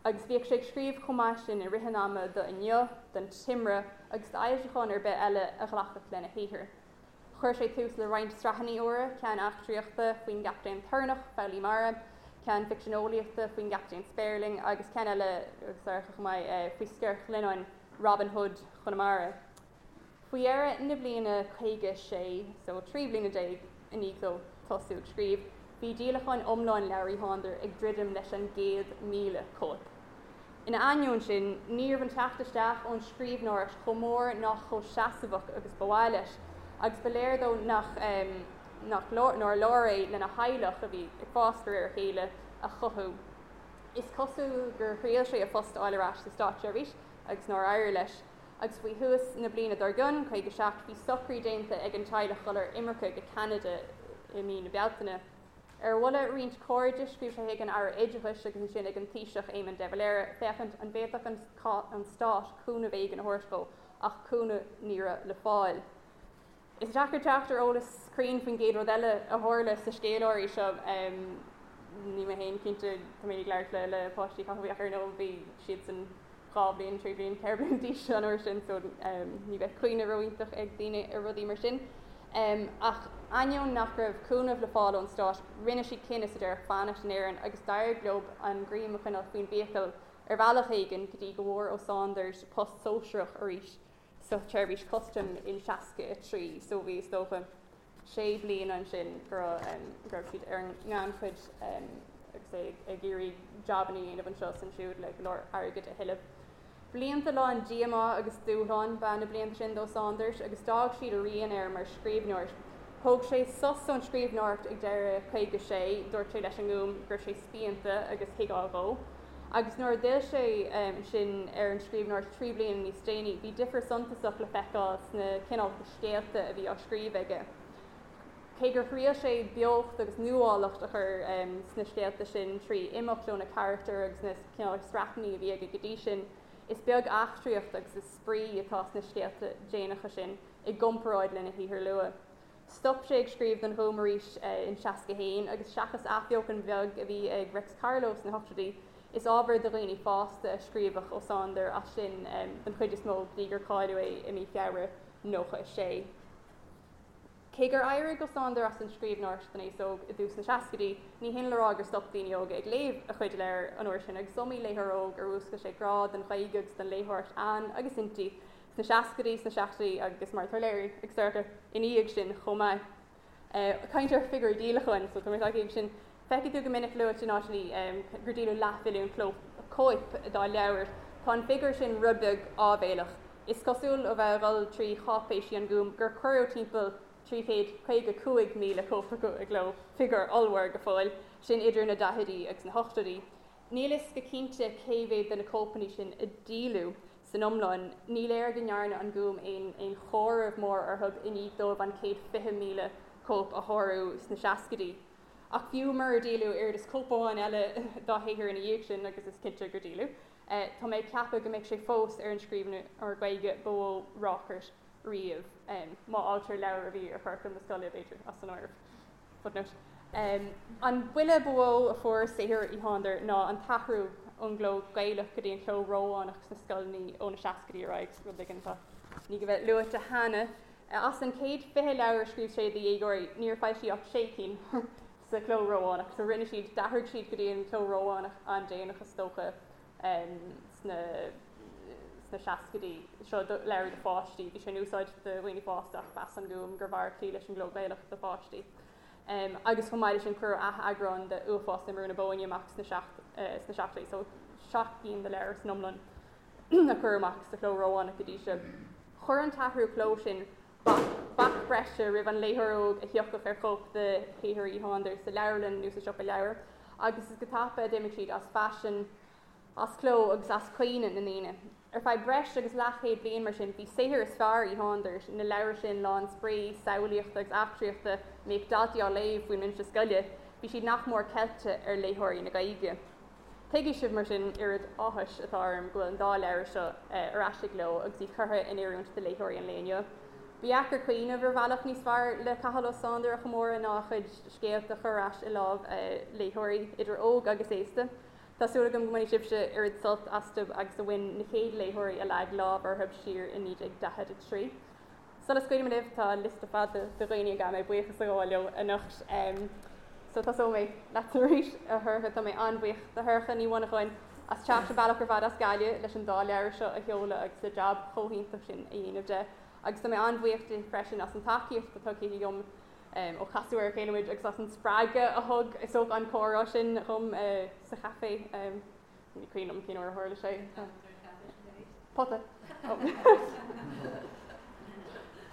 Agus bhíodh sé ag scríobh chomh maith sin i rith an ama do Inniu, don Timire agus d'fhoilseacháin ar bith eile a ghlacfadh lena shaothar. Chuir sé tús le roinnt sraitheanna úra, ceann eachtraíochta faoin gCaptaen Toirneach, Foghlaí Mara, ceann ficsean eolaíochta faoin gCaptaen Spéirling agus ceann eile, agus Sorcha chomh maith, faoi Sciorr Ghlionnáin, Robin Hood Chonamara. Faoi dheireadh na bliana 56, so 13 bliana i ndiaidh dó tosú ag scríobh, bhí díolachán iomlán leabhar Uí Shándair ag druidim leis an gcéad 1,000 cóip. Ina ainneoin sin, ní raibh an teacht isteach ón scríbhneoireacht chomh mór ná chomh seasmhach agus ba mhaith leis, agus ba léir dó nach nach nár leor é lena theaghlach, a bhí ag fás de réir a chéile, a chothú. Is cosúil gur thriail sé a phost a fháil ar ais sa státseirbhís agus nár éirigh leis. Agus faoi thús na bliana dár gcionn, 57, bhí socrú déanta ag an teaghlach dul ar imirce go Ceanada i mí na Bealtaine. Ar mholadh roinnt cairde, scríobh sé chuig an Aire Oideachais agus ansin ag an Taoiseach Éamon de Valera féachaint an bhféadfadh an Stát cúnamh éigin a thabhairt dhó, ach cúnamh ní raibh le fáil. Is deacair teacht ar eolas cruinn faoin gcéad rud eile a tharla sa scéal áirithe seo. Níl mé féin cinnte, tá mé ag labhairt le páistí Chathail ach ar ndóigh bhí siadsan 2 bhliain, 3 bhliain, 4 bliana d'aois an uair sin so ní bheadh cuimhne ró-iontach ag daoine ar rudaí mar sin. Ach ainneoin nach raibh cúnamh le fáil ón stát, rinne siad cinneadh sa deireadh fanacht in Éirinn agus d'éirigh leo an greim a choinneáil faoin bhfiacail ar bhealach éigin go dtí go bhfuair Ó Sándair post sóisearach arís sa tseirbhís custaim in 63 so bhí is dócha sé bliana ansin go raibh go raibh siad ar an ngannchuid agus é ag iarraidh jabanna a dhéanamh anseo is ansiúd le go leor airgid a thuilleamh. Blianta lán díomá agus dúshlán ba ea na blianta sin d'Ó Sándair agus d'fhág siad a rian air mar scríbhneoir. Thóg sé sos ón scríbhneoireacht ag deireadh 56, dúirt sé leis an nGúm go raibh sé spíonta agus thuigfeá dhó. Agus nuair a d'fhill sé ansin ar an scríbhneoireacht 3 bliana níos déanaí, bhí difear suntasach le feiceáil sna cineálacha scéalta a bhí á scríobh aige. Cé gur thriail sé beocht agus nuálacht a chur sna scéalta sin trí imeacht ó na carachtair agus na cineálacha sraitheanna a bhí aige go dtí sin, is beag eachtraíocht agus is spraoi atá sna scéalta déanacha sin i gcomparáid lena shaothar luath. Stop sé ag scríobh don Ghúm arís in 61 agus seachas athbheochan bheag a bhí ag Reics Carló sna hochtóidí, is ábhar do dhaoine fásta a scríobhadh Ó Sándair as sin den chuid is mó go dtí gur cailleadh é i mí Feabhra 96. Cé gur éirigh Ó Sándair as an scríbhneoireacht don aos óg i dtús na seascaidí, ní hin le rá gur stop daoine óga ag léamh a chuid leabhar an uair sin agus is iomaí léitheoir óg ar mhúscail sé grá don Ghaeilge agus don léitheoireacht ann agus inti sna seascaidí, sna seachtóidí agus mar atá léirithe ag Sorcha ina dhiaidh sin chomh maith. Caint ar figiúirí díolacháin, so tá mé tagtha ag sin. Feicfidh tú go minic luaite in áiteanna gur díoladh leathmhilliún cóip dá leabhar. Tá an figiúr sin rud beag áibhéileach. Is cosúil ó bheith a dhul trí cháipéisí an Ghúim gur cuireadh timpeall 355,000 cóip acu i gcló, figiúr ollmhór go fóill, sin idir na daichidí agus na hochtóidí. Níl fhios go cinnte cé mhéad de na cóipeanna sin a díoladh san iomlán. Ní léir go ndearna an Gúm aon aon chomhaireamh mór orthu i ndiaidh dóibh an 120,000 cóip a shárú sna seascaidí. Ach fiú murar díoladh oiread is cóip amháin eile dá shaothar ina dhiaidh sin, agus is cinnte gur díoladh, tá mé ag ceapadh go mbeidh sé fós ar an scríbhneoir Gaeilge ba mhó ráchairt riamh, má fhágtar leabhair a bhí ar churaclam na scoile, b'fhéidir, as an áireamh. Footnote. An buille ba mhó a fuair saothar Uí Shándair ná an t-athrú ón gcló Gaelach go dtí an cló Rómhánach sna scoileanna ó na seascaidí ar aghaidh, rud éigin atá i ndiaidh a bheith luaite cheana. As an 120 leabhar a scríobh sé do dhéagóirí, níor foilsíodh ach sé cinn sa chló Rómhánach. So rinne siad, d'athraigh siad go dtí an cló Rómhánach an-déanach is dócha. sna sna seascaidí. Seo leabhar do pháistí. Bhí sé in úsáid do dhaoine fásta ach mheas an Gúm gurbh fhearr cloí leis an gcló Gaelach do pháistí. Agus chomh maith leis sin cuireadh ath-eagrán de Uafás i mBrú na Bóinne amach sna sna seachtóidí. So 7 gcinn de leabhair san iomlán a cuireadh amach sa chló Rómhánach go dtí seo. Chuir an t-athrú cló sin bac breise roimh an léitheoir óg a thiocfadh ar chóip de shaothar Uí Shándair sa leabharlann nó sa siopa leabhar, agus is go tapa a d'imigh siad as faisean, as cló agus as cuimhne na ndaoine. Ar feadh breis agus leathchéad bliain, mar sin, bhí saothar is fearr Uí Shándair, na leabhair sin lán spraoi, samhlaíochta agus eachtraíochta a mbíodh daltaí á léamh faoin mbinse scoile, bhí siad nach mór ceilte ar léitheoirí na Gaeilge. Tuigfidh sibh, mar sin, oiread áthais atá orm go bhfuil an dá leabhar seo ar ais i gcló agus iad curtha in oiriúint do léitheoirí an lae inniu. Ba dheacair cuimhneamh ar bhealach níos fearr le Cathal Ó Sándair a chomóradh ná a chuid scéalta a chur ar ais i lámh léitheoirí, idir óg agus aosta. Tá súil agam go mbainfidh sibhse oiread sult astu agus a bhain na chéad léitheoirí a leag lámh orthu siar i 1943. Sula scaoilim libh, tá liosta fada de dhaoine a gcaithfidh mé buíochas a ghabháil leo anocht. So tosóidh mé leatsa arís, a Shorcha. Tá mé an-bhuíoch de Shorcha Ní Mhonacháin as teacht an bealach ar fad as Gaillimh leis an dá leabhar seo a sheoladh agus an jab chomh hiontach sin a dhéanamh de. Agus tá mé an-bhuíoch di freisin as an tacaíocht atá tugtha dhom ó casadh ar a chéile muid agus as an spreagadh a thug is dócha an comhrá sin dhom sa chaifé. Ní cuimhin liom cén uair a tharla sé. Pota.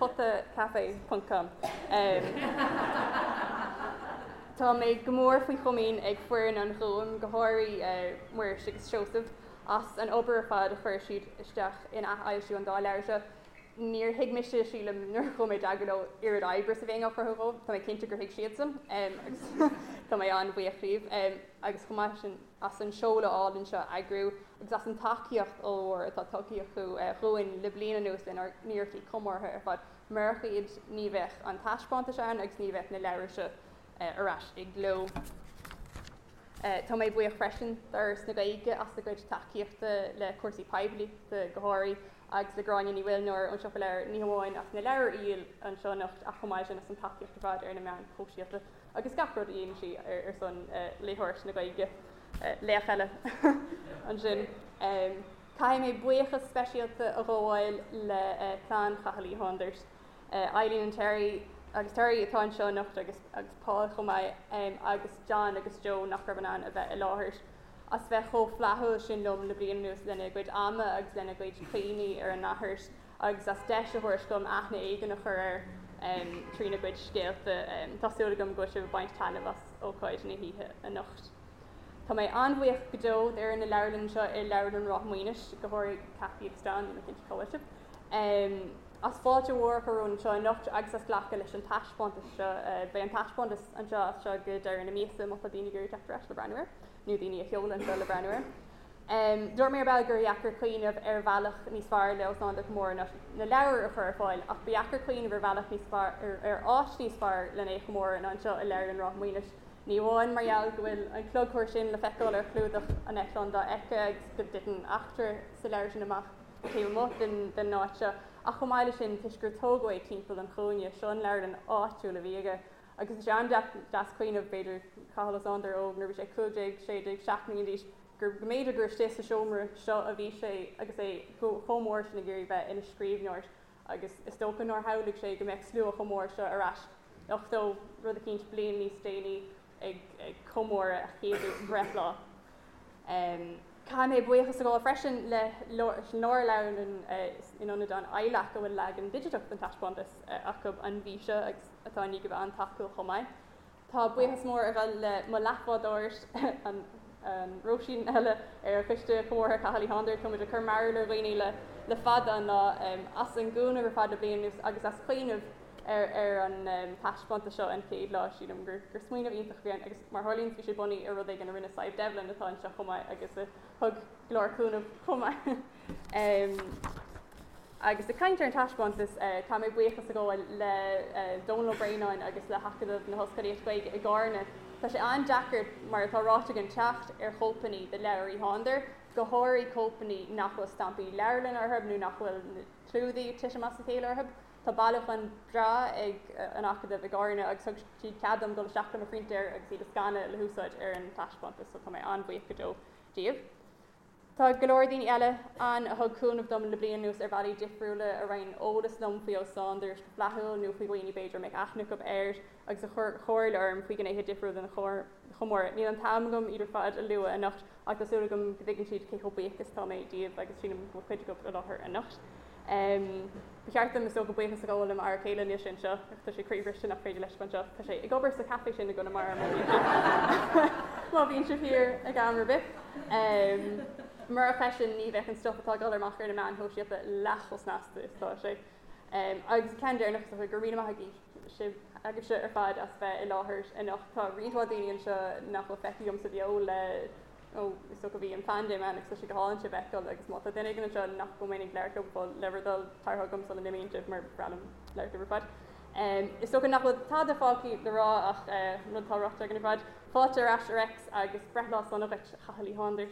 Potacafe ponc com. Tá mé go mór faoi chomaoin ag foireann an Ghúim, go háirithe Muiris agus Seosamh, as an obair ar fad a chuir siad isteach in athfhoilsiú an dá leabhar seo. Níor thuig mise, sílim, nuair a chuaigh mé i dteagmháil leo oiread oibre is a bheadh á chruthú dhóibh. Tá mé cinnte gur thuig siadsan agus Tá mé an-bhuíoch díobh agus chomh maith sin as an seoladh álainn seo a eagrú agus as an tacaíocht ollmhór atá tugtha acu dhúinn le bliain anuas lenár n-iarrachtaí comórtha ar fad. Murach iad ní bheadh an taispeántas ann agus ní bheadh na leabhair seo ar ais i gcló. Tá mé buíoch freisin d'Fhoras na Gaeilge as a gcuid tacaíochta le cúrsaí poiblíochta go háirithe agus le Gráinne Ní Mhuilneoir ón Siopa Leabhar ní hamháin as na leabhair a dhíol anseo anocht ach chomh maith sin as an tacaíocht ar fad ar na meáin shóisialta agus gach rud a dhéanann sí ar son léitheoireacht na Gaeilge. Laoch eile ansin. Caithfidh mé buíochas speisialta a ghabháil le clann Chathail Uí Shándair, Eileen and Terry agus Terry atá anseo anocht agus agus Paul chomh maith agus John agus Joe nach raibh in ann a bheith i láthair, as bheith chomh flaithiúil sin liom le bliain anuas lena gcuid ama agus lena gcuid cuimhní ar a n-athair agus as deis a thabhairt dom aithne éigin a chur air trína gcuid scéalta. Tá súil agam go bhfuil sibh ag baint taitneamh as ócáid na hoíche anocht. Tá mé an-bhuíoch go deo d'fhoireann na leabharlainne anseo i Leabharlann Ráth Maonais, go háirithe Cathy agus John, níl mé cinnte cá bhfuil sibh, as fáilte mhór a chur romhainn anseo anocht agus as glacadh leis an taispeántas seo. Beidh an taispeántas anseo as seo go deireadh na míosa má tá daoine ag iarraidh teacht ar ais le breathnú air, nó daoine a sheoladh anseo le breathnú air. Dúirt mé ar ball gur dheacair cuimhneamh ar bhealach níos fearr le Ó Sándair a chomóradh ná na leabhair a chur ar fáil, ach ba dheacair cuimhneamh ar bhealach níos fearr, ar áit níos fearr lena é a chomóradh ná anseo i Leabharlann Ráth Maonais. Ní amháin mar gheall go bhfuil an clogthúr sin le feiceáil ar chlúdach an Eitleáin Dofheicthe agus go dtiteann eachtra sa leabhar sin amach taobh amuigh den áit seo, ach chomh maith leis sin toisc gur tógadh é timpeall an chúinne. Seo an leabharlann áitiúil a bhí aige agus tá sé an-deas cuimhneamh, b'fhéidir, Cathal Ó Sándair óg nuair a bhí sé 15, 16, 17 mbliana d'aois, gur go mb'fhéidir gur istigh sa seomra seo a bhí sé agus é chomh mór sin ag iarraidh bheith ina scríbhneoir. Agus is dócha nár shamhlaigh sé go mbeadh slua chomh mór seo ar ais 80 rud eicínt bliain níos déanaí ag comóradh a chéadú breithlá. Caithfidh mé buíochas a ghabháil freisin le Lárleabharlann in Ionad an ILAC a bhfuil leagan digiteach den taispeántas acu an mhí seo agus atá i ndiaidh a bheith an-tacúil chomh maith. Tá buíochas mór ag dul le mo leathbhádóir, an Róisín eile ar Choiste Comórtha Chathail Uí Shándair, tá muid ag cur mearbhall ar dhaoine le fada an lá, as an gcúnamh ar fad le bliain anuas agus as cuimhneamh ar an taispeántas seo an chéad lá. Sílim gur smaoineamh iontach a bhí ann agus mar a tharlaíonn bhí sé bunaithe ar rud éigin a rinne Sadhbh Devlin atá anseo chomh maith agus a thug go leor cúnamh chomh maith. Agus ag caint ar an taispeántas, caithfidh mé buíochas a ghabháil le Dónal Ó Braonáin agus le hAcadamh na hOllscolaíochta Gaeilge i gCarna. Tá sé an-deacair, mar atá ráite againn, teacht ar chóipeanna de leabhair Uí Shándair, go háirithe cóipeanna nach bhfuil stampaí leabharlainne orthu nó nach bhfuil na clúdaigh ag titim as a chéile orthu. Tá bailiúchán breá ag an Acadamh i gCarna agus thug siad cead dom dul isteach le mo phrintéir agus iad a scanadh le húsáid ar an taispeántas, so tá mé an-bhuíoch go deo díobh. Tá go leor daoine eile ann a thug cúnamh dom le bliain anuas ar bhealaí difriúla, a roinn eolas liom faoi Ó Sándair go flaithiúil nó faoi dhaoine b'fhéidir a mbeadh aithne acu air agus a chuir comhairle orm faoi ghnéithe difriúla den chomóradh. Níl an t-am agam iad ar fad a lua anocht ach tá súil agam go dtuigeann siad cé chomh buíoch is atá mé díobh agus sílim go bhfuil cuid acu i láthair anocht. Ba cheart dom, is dócha, buíochas a ghabháil le m'fhear céile, níl sé anseo, ach tá sé croíbhriste nach féidir leis a bheith anseo. Tá sé ag obair sa chaife sin i gConamara má bhíonn sibh má bhíonn sibh thiar ag am ar bith. Murach eisean ní bheadh an stuif atá ag dul amach ar na meáin shóisialta leath chomh snasta is atá sé. Agus ceann deireanach is dócha, go raibh míle maith agaibh sibh agaibhse ar fad as bheith i láthair anocht. Tá roinnt mhaith daoine anseo nach bhfuil feicthe agam sa bheo le ó is dócha bhí an phaindéim ann agus tá sé go hálainn sibh a fheiceáil agus má tá duine éigin anseo nach bhfuil mé ag labhairt leo go fóill, le bhur dtoil tar chugam sula n-imíonn sibh mar ba bhreá liom labhairt libh ar fad. Is dócha nach bhfuil tada fágtha le rá ach rud atá ráite againn ar fad, fáilte ar ais a Reics agus breithlá sona dhuit, a Chathail Uí Shándair.